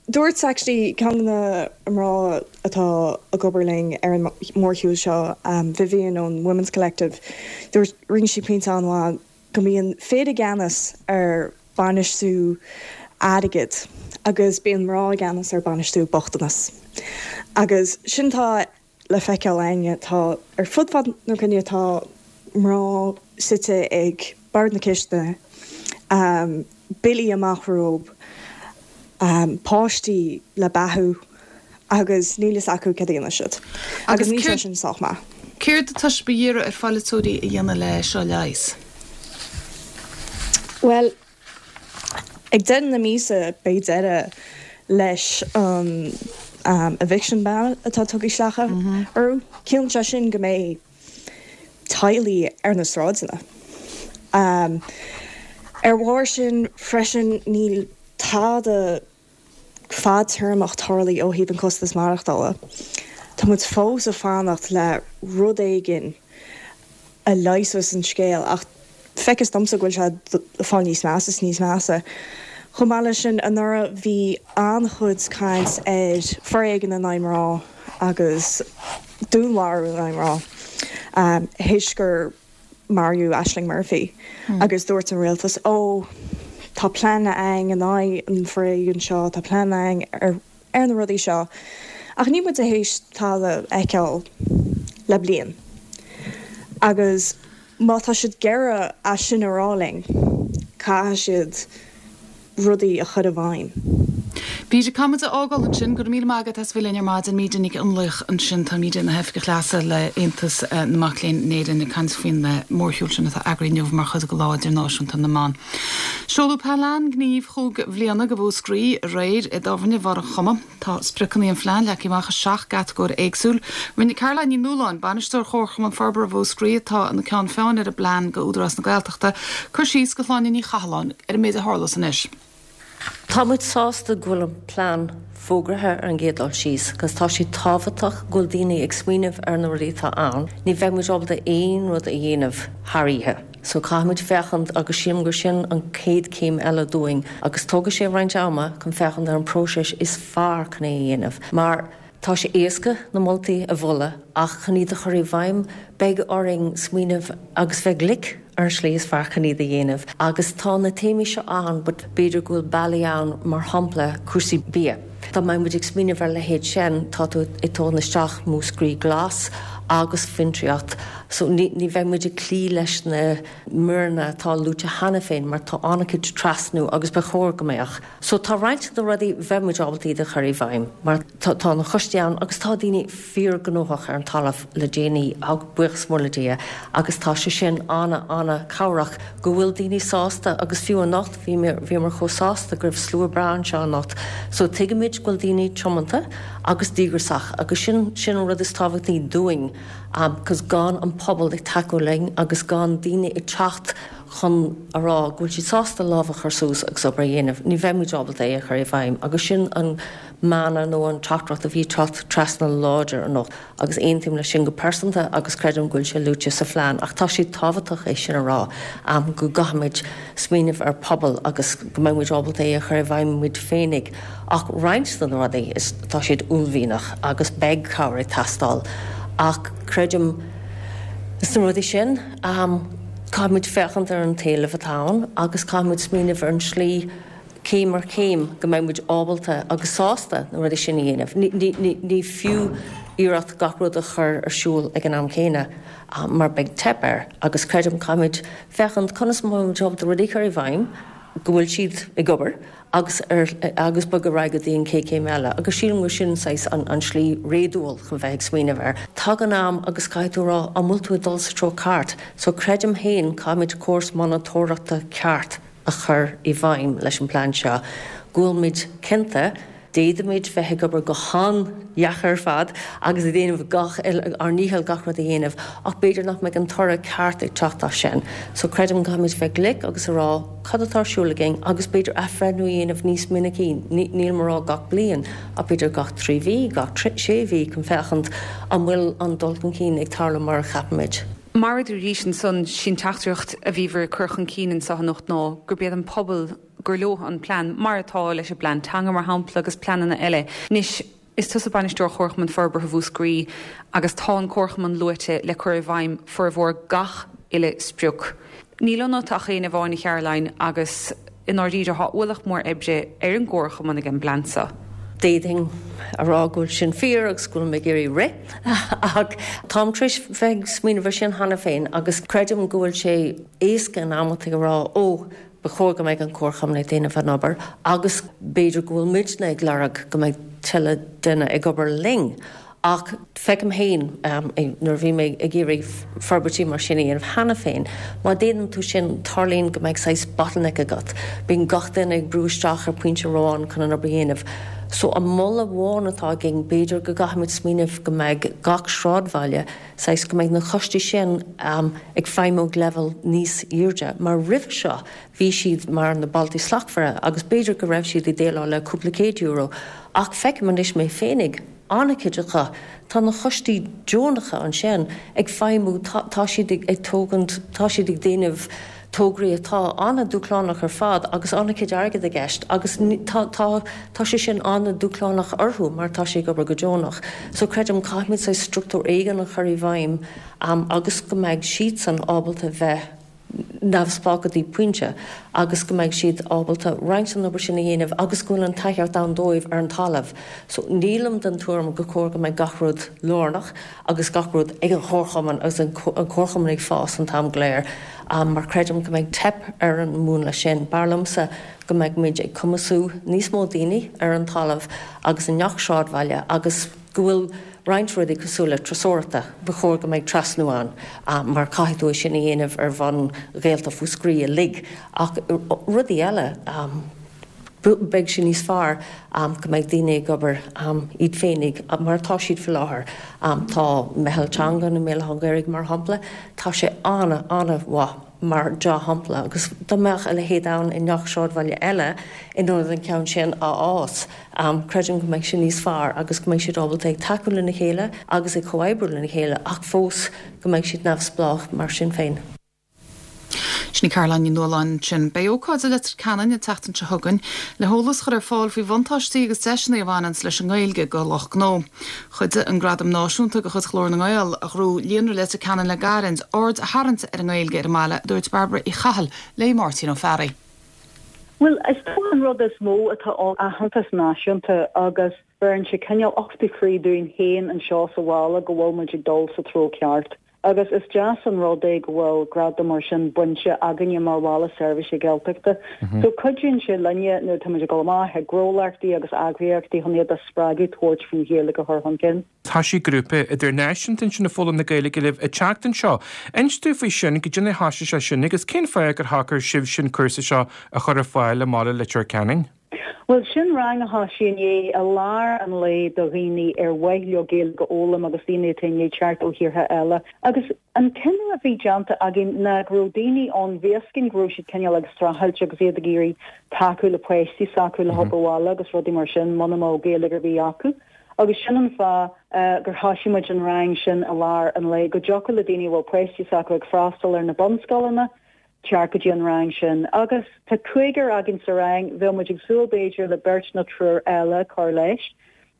dúirt actually ceann de na mná atá ag obair linn ar an mórshiúl seo, Vivian ón Women's Collective, dúirt, rinne sí pointe an-mhaith go mbíonn fir i gceannas ar bainistiú airgid agus bíonn mná i gceannas ar bainistiú bochtanas. Agus sin tá le feiceáil againne. Tá, ar fud fad na cruinne, tá mná suite ag bord na cistine, billí amach rompu, páistí le beathú agus níl fhios acu céard a dhéanfaidh siad. Agus níl sé sin sách maith. Céard atá sibh a iarraidh ar pholaiteoirí a dhéanamh le seo a leigheas? Bhuel, Ag deireadh na míosa beidh deireadh leis an eviction ban atá tugtha isteach orthu. Ciallaíonn sé sin go mbeidh teaghlaigh ar na sráideanna. Ar bharr sin freisin níl tada fadtéarmach tarlaithe ó thaobh an costas maireachtála. Tá muid fós ag fanacht le rud éigin a leigheasfas an scéal ach feictear domsa go bhfuil sé ag fáil níos measa is níos measa. Chomh maith leis sin, anuraidh bhí an-chuid caint ar foréigean in aghaidh mná agus dúnmharú in aghaidh mná théis gur maraíodh Ashling Murphy agus dúirt an rialtas, Ó, tá plean againn in aghaidh an foréigin seo, tá plean againn ar ar na rudaí seo. Ach níl muid théis tada a fheiceáil le bliain. Agus má tá siad ag iarraidh é sin a rá linn, caithfidh siad rudaí a chur i bhfeidhm. Míde, caithfidh muid a fhágáil ansin. Go raibh míle maith agat as bheith linn ar maidin. Míde Nic Fhionnlaoich ansin. Tá Míde ina hOifigeach Leasa le Aontas na Mac Léinn in Éirinn ag caint faoin mórshiúl sin atá eagraithe inniu mar chuid de Lá Idirnáisiúnta na mBan. Seoladh Plean Gnímh chúig bhliana do Mhúscraí aréir i dtábhairne Bharr an Choma. Tá spriocanna an phlean leagtha amach i seacht gcatagóir éagsúil. Rinne Caroline Ní Nualláin, Bainisteoir Chomharchumann Forbartha Mhúscraí, atá ina ceann feadhain ar an bplean do Údarás na Gaeltachta, cur síos do Shláine Ní Chathalláin ar an méid a tharlós anois. Tá muid sásta go bhfuil an plean fógraithe ar an gcéad dul síos agus tá sé tábhachtach go bhfuil daoine ag smaoineamh ar na rudaí atá ann. Ní bheidh muid ábalta aon rud a dhéanamh thar oíche. So caithfimid féachaint agus sílim gur sin an chéad chéim eile dúinn agus tógfaidh sé roinnt ama chun féachaint ar an próiseas is fearr chun é a dhéanamh mar tá sé éasca na moltaí a mholadh ach chun iad a chur i bhfeidhm beidh orainn smaoineamh agus bheith glic ar an slí is fearr chun iad a dhéanamh agus tá na téamaí seo ann but b'fhéidir go bhfuil bealaí ann mar shampla cúrsaí bia. Dá mbeadh muid ag smaoineamh ar a leithéid sin, tá tú ag tógaint isteach Múscraí Glas agus fiontraíocht so ní bheidh muid ag cloí leis na míreanna atá luaite cheana féin mar tá an-chuid trasnú agus ba chóir go mbeadh. So tá roinnt de na rudaí bheadh muid ábalta iad a chur i bhfeidhm mar tá na coistí ann agus tá daoine fíorghnóthach ar an talamh le déanaí, buíochas mór le Dia, agus tá sé sin ana-ana-chabhrach go bhfuil daoine sásta agus fiú anocht bhí bhíomar chomh sásta go raibh slua breá anseo anocht so tuigimid go bhfuil daoine tiomanta agus díograiseach agus sin sin an rud is tábhachtaí dúinn cos gan an pobal ag tacú linn agus gan daoine ag teacht chun a rá go bhfuil siad sásta lámh a chur suas agus obair a dhéanamh, ní bheidh muid ábalta é a chur i bhfeidhm agus sin an mana nó an teachtaireacht a bhí ag teacht trasna láidir anocht agus aontaím leis sin go pearsanta agus creidim go bhfuil sé luaite sa phlean ach tá sé tábhachtach é sin a rá go gcaithfimid smaoineamh ar pobal agus go mbeidh muid ábalta é a chur i bhfeidhm muid féinig ach roinnt de na rudaí is tá siad uaillmhianach agus beidh cabhair ag teastáil ach creidim. Sna rudaí sin, caithfimid féachaint ar an t-éileamh atá ann agus caithfimid smaoineamh ar an slí céim ar chéim go mbeidh muid ábalta agus sásta na rudaí sin a dhéanamh. Ní fiú iarracht gach rud a chur ar siúl ag an am céanna mar beidh teip air agus creidim caithfimid féachaint conas a mbeidh muid ábalta rudaí a chur i bhfeidhm go bhfuil siad ag obair agus ar agus bogadh ar aghaidh go dtí an chéad chéim eile agus sílim gur sin saghas an an slí réadúil chun bheith ag smaoineamh air. Tagann am agus caithfidh tú a rá an bhfuil tú ag dul sa treo ceart so creidim féin caithfimid córas monatóireachta ceart a chur i bhfeidhm leis an bplean seo, go bhfuilimid cinnte, d'fhéadfaimid bheith ag obair go han-dheacair ar fad agus ag déanamh gach ár ndícheall gach rud a dhéanamh ach b'fhéidir nach mbeidh an toradh ceart ag teacht as sin. So creidim go gcaithfimid bheith glic agus a rá cad atá ar siúl againn agus b'fhéidir athbhreithniú a dhéanamh níos minicí, nílim a rá gach bliain ach b'fhéidir gach 3 mhí, gach 6 mhí chun féachaint an bhfuil an dul chun cinn ag tarlú mar a cheapaimid. Mar a dúraís ansan, sí an teachtaireacht a bhíobhair ag cur chun cinn anso anocht ná gurb iad an pobal gur leo an plean, mar atá leis an bplean teanga, mar shampla, agus pleananna eile. Anois, is tusa Bainisteoir Chomharchumann Forbartha Mhúscraí agus tá an Comharchumann luaite le cur i bhfeidhm formhór gach uile sprioc. Níl ionat ach éinne amháin, a Charoline, agus i ndáiríre tá ualach mór oibre ar an gComharchumann ag an bplean seo. D'fhéadfainn a rá go bhfuil sin fíor agus go bhfuil mé ag iarraidh rith ach táim tar éis bheith ag smaoineamh ar sin cheana féin agus creidim go bhfuil sé éasca in amantaí a rá 'ó, ba chóir go mbeidh an Comharchumann ag déanamh an obair' agus b'fhéidir go bhfuil muidne ag lorg go mbeidh tuilleadh duine ag obair linn. Ach feicim féin, nuair a bhí mé ag iarraidh forbairtí mar sin a dhéanamh cheana féin, má déanann tú sin, tarlaíonn go mbeidh saghas bottleneck agat. Bíonn gach duine ag brú isteach ar pointe amháin chun an obair a dhéanamh. So an moladh amháin atá againn, b'fhéidir go gcaithfimid smaoineamh go mbeidh gach sráidbhaile, saghas go mbeidh na coistí sin ag feidhmiú ag leibhéal níos airde, mar roimhe seo bhí siad mar na Bailte Slachtmhara agus b'fhéidir go raibh siad ag déileáil le cúpla céad euro ach feicim anois mé féinig, an-chuid acu, tá na coistí deonacha ansin ag feidhmiú, tá siad ag tógaint, tá siad ag déanamh tograí atá an-dúshlánach ar fad agus an-chuid airgead i gceist agus tá, tá, tá sé sin an-dúshlánach orthu mar tá sé ag obair go deonach. So creidim caithfimid saghas struchtúr éigin a chur i bhfeidhm agus go mbeidh siadsan ábalta bheith neamhspleách go dtí pointe agus go mbeidh siad ábalta roinnt den obair sin a dhéanamh agus go bhfuil an tacaíocht ann dóibh ar an talamh. So nílim den tuairim gur chóir go mbeidh gach rud lárnach agus gach rud ag an chomharchumann agus an comharchumann ag fás an t-am go léir mar creidim go mbeidh teip ar an múnla sin. B'fhearr liomsa go mbeidh muid ag cumasú níos mó daoine ar an talamh agus i ngach sráidbhaile agus go bhfuil roinnt rudaí cosúil le turasóireachta, ba chóir go mbeidh trasnú ann mar caithfidh tú é sin a dhéanamh ar bhonn Ghaeltacht Mhúscraí uilig ach rudaí eile, beidh sé níos fearr go mbeidh daoine ag obair iad féinig mar atá siad faoi láthair. Tá Meitheal Teanga i mBéal Átha an Ghaorthaidh mar shampla, tá sé an-an-mhaith. mar dea-shampla, agus dá mbeadh a leithéid ann i ngach sráidbhaile eile in ionad an ceann sin a fhás, creidim go mbeidh sé níos fearr agus go mbeidh siad ábalta ag tacú lena chéile agus ag comhoibriú lena chéile ach fós go mbeidh siad neamhspleách mar sin féin. Sin í Caroline Ní Nualláin ansin. Beidh ócáid i Leitir Ceanainn an tseachtain seo chugainn le heolas a chur ar fáil faoi bhuntáistí agus deiseanna a bhaineanns leis an nGaeilge do lucht gnó. Chuidigh an Gradam Náisiúnta de chuid Ghlór na nGael, a ghnóthaigh Líonra Leitir Ceanainn le gairid, aird a tharraingt ar an nGaeilge ar an mbaile, a dúirt Bairbre Uí Chathail le Máirtín Ó Fearraigh. Bhuel, is dócha an rud is mó atá ann aitheantas náisiúnta agus bheireann sé cineál uchtú croí dúinn féin anseo sa bhaile go bhfuil muid ag dul sa treo ceart. Agus is deas an rud é go bhfuil gradam mar sin bainte againne mar bhaile seirbhíse Gaeltachta. So cuidíonn sé linne nuair atá muid ag dul amach ag gnólachtaí agus eagraíochtaí chun iad a spreagadh tabhairt faoin Ghaeilge a chur chun cinn. Thoisigh grúpa idirnáisiúnta ansin ag foghlaim na Gaeilge libh an tseachtain seo. Inis dúinn faoi sin, goidé mar a thoisigh sé sin agus cén fáth gur shocair sibhse an cúrsa seo a chur ar fáil i mbaile Leitir Ceanainn? Bhuel, sin rang a thoisigh inné i lár an lae do dhaoine ar mhaith leo Gaeilge a fhoghlaim agus daoine atá i ndiaidh teacht ó thíortha eile. Agus an cinneadh a bhí déanta againn ná go raibh daoine ann, bhí fhios againn go raibh siad cineál ag streachailt agus iad ag iarraidh tacú le páistí s'acu le hobair bhaile agus rudaí mar sin muna mbeadh Gaeilge ar bith acu. Agus sin an fáth gur thoisigh muid an rang sin i lár an lae, go dtiocfadh le daoine a bhfuil páistí s'acu ag freastal ar na bunscoileanna, teacht go dtí an rang sin. Agus tá cúigear againn sa rang, bheadh muid ag súil b'fhéidir le beirt nó triúr eile cur leis.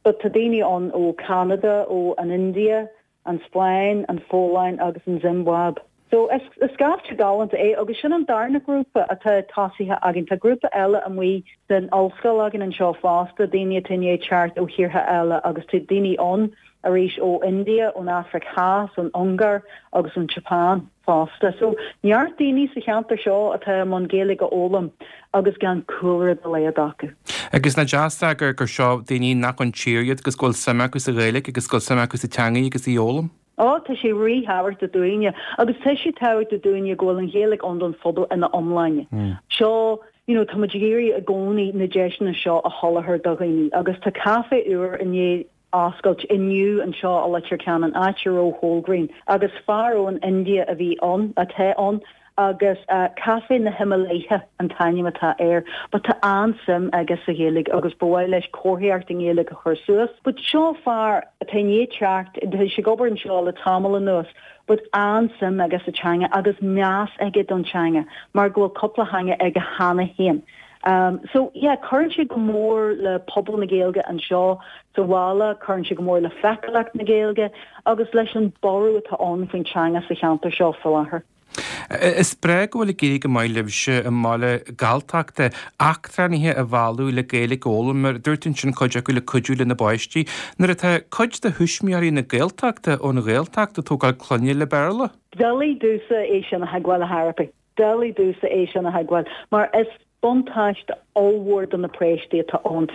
But tá daoine ann ó Canada, ó an India. an Spáinn, an Pholainn agus an Ziombáib. So, is scaifte galánta é agus sin an darna grúpa atá tosaithe againn. Tá grúpa eile amuigh san ollscoil againn anseo fosta, daoine atá i ndiaidh teacht ó thíortha eile agus tá daoine ann arís ó India, ón Afraic Theas, ón Ungáir agus ón tSeapáin fosta. So, neart daoine sa cheantar seo atá i mbun Gaeilge a fhoghlaim agus gan cúlra dá laghad acu. Agus nach deas é gur seo daoine nach ón tír iad agus go bhfuil suim acu sa Ghaeilge agus go bhfuil suim acu sa teangaidh agus í a fhoghlaim. Ó, tá sé ríthábhachtach dúinne, agus tá sé tábhachtach dúinne go bhfuil an Ghaeilge ann don phobal ina iomláine. Seo, you know, tá muid ag iarraidh i gcónaí na deiseanna seo a sholáthar do dhaoine, agus tá caifé úr i ndiaidh oscailt inniu anseo i Leitir Ceanainn, áit a raibh Wholegrain, agus fear ón India a bhí ann, atá ann, agus Caifé na Himalaya an t-ainm atá air. But tá an-suim aige sa Ghaeilge agus ba mhaith leis comharthaíocht i nGaeilge a chur suas. But seo fear atá i ndiaidh teacht, tá sé ag obair anseo le tamall anuas, but an-suim aige sa teanga agus meas aige don teanga mar go bhfuil cúpla theanga aige cheana féin. So yeah, cuireann sé go mór le pobal na Gaeilge anseo sa bhaile, cuireann sé go mór le feiceálacht na Gaeilge agus leis an borradh atá ann faoin teanga sa cheantar seo faoi láthair. Is breá go bhfuil ag éirí go maith libhse i mbaile Galltachta eachtránaithe a mhealladh le Gaeilge a fhoghlaim, mar a dúirt tú ansin cuid acu le cuidiú lena bpáistí, nuair atá cuid de thuismitheoirí na Gaeltachta ón Ghaeltacht ag tógáil clainne le Béarla. Doiligh domhsa é sin a thuigbheáil a therapy. Doiligh domhsa é sin a thuigbheáil, mar is buntáiste ollmhór do na páistí atá ann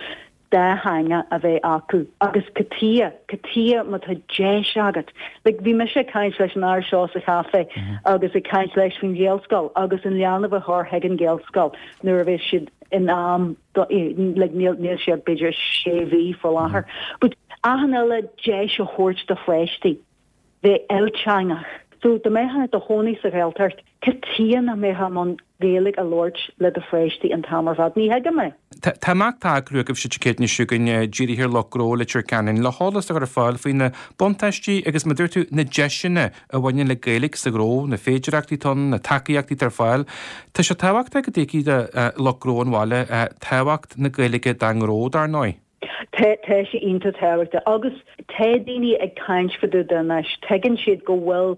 dá theanga a bheith acu. Agus cad chuige, cad chuige má tá deis agat. Like, bhí mise ag caint leis an fhear seo sa chaife agus ag caint leis faoin Ghaelscoil agus an leanbh a chur chuig an Ghaelscoil nuair a bheas siad in am do, like, níl, níl siad b'fhéidir sé mhí faoi láthair. But achan uile deis a thabhairt do pháistí. bheith ilteangach. So, dá mbeifeá i do chónaí sa Ghaeltacht, cad chuige nach mbeifeá i mbun Gaeilge a labhairt le do pháistí an t-am ar fad? Ní thuigim é. Tá imeacht á eagrú agaibhse Dé Céadaoin seo chugainn dírithe ar lucht gnó Leitir Ceanainn le heolas a chur ar fáil faoi na buntáistí agus, mar a dúirt tú, na deiseanna a bhaineann le Gaeilge sa ghnó, na féidearthachtaí atá ann, na tacaíochtaí atá ar fáil. Tá sé tábhachtach go dtuigfidh lucht gnó an bhaile tábhacht na Gaeilge dá ngnó, dar ndóigh. Tá, tá sé iontach tábhachtach agus tá daoine ag caint fá dtaobh de anois, tuigeann siad go bhfuil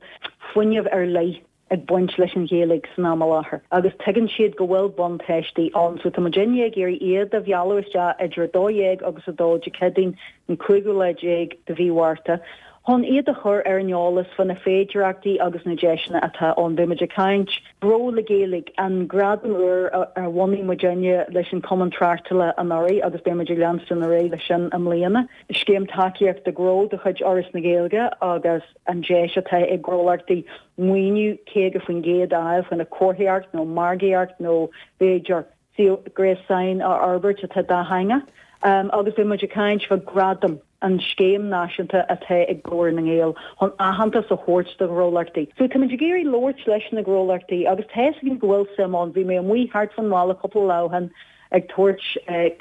fuinneamh ar leith ag baint leis an Ghaeilge san am i láthair agus tuigeann siad go bhfuil buntáistí ann so tá muidinne ag iarraidh iad a mhealladh isteach idir 12 agus 2 Dé Céadaoin an cúigiú lá déag de mhí Mhárta chun iad a chur ar an eolas fá na féidearthachtaí agus na deiseanna atá ann. Beidh muid ag caint. Gnó le Gaeilge, an gradam úr a bhunaigh muidinne leis an Cumann Tráchtála anuraidh agus beidh muid ag leanstan ar aghaidh leis sin i mbliana. Scéim Tacaíochta Gnó de chuid Fhoras na Gaeilge agus an deis atá ag gnólachtaí maoiniú 50% a fháil chun a comharthaíocht nó margaíocht nó b'fhéidir suíomh gréasáin a fhorbairt atá dátheangach. Agus beidh muid ag caint fá Gradam, an scéim náisiúnta atá ag Glór na nGael chun aitheantas a thabhairt do ghnólachtaí. So tá muid ag iarraidh labhairt leis na gnólachtaí agus tá fhios againn go bhfuil suim ann. Bhí mé amuigh thart fán bhaile cúpla lá ó shin ag tabhairt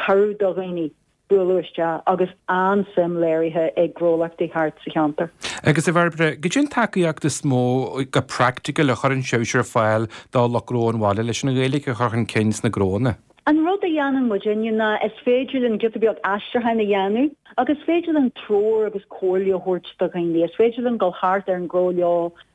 cuireadh do dhaoine bualadh isteach agus an-suim léirithe ag gnólachtaí thart sa cheantar. Agus a Bhairbre, goidé an tacaíocht is mó go praiticiúil a chuireann sibhse ar fáil do lucht gnó an bhaile leis an Ghaeilge a chur chun cinn sna gnóanna? An rud a dhéanann muidinne ná is féidir linn giota beag aistriúcháin a dhéanamh agus is féidir linn treoir agus comhairle a thabhairt do dhaoine. Is féidir linn dul thart ar an ngnó leo,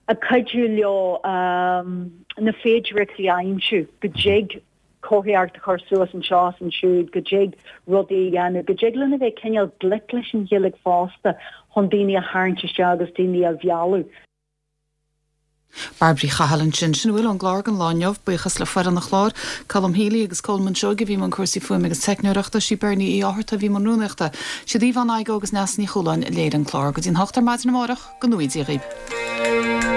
ag cuidiú leo na féidearthachtaí a aimsiú go dtig comharthaíocht a chur suas anseo is ansiúd, go dtig rudaí a dhéanamh, go dtig linn a bheith cineál glic leis an Ghaeilge fosta chun daoine a tharraingt isteach agus daoine a mhealladh. Bairbre Uí Chathail ansin. Sin a bhfuil ón gclár don lá inniu. Buíochas le foireann an chláir, Colm Healy agus Colman Seoige a bhí i mbun cúrsaí fuaime agus teicneoireachta, sí Bernie Uí Fhátharta a bhí i mbun rúnaíochta, siad Yvonne Igoe agus Neasa Ní Chualáin a léirigh an clár. Go dtí'n hocht ar maidin amárach, go ngnóthaí Dia dhaoibh.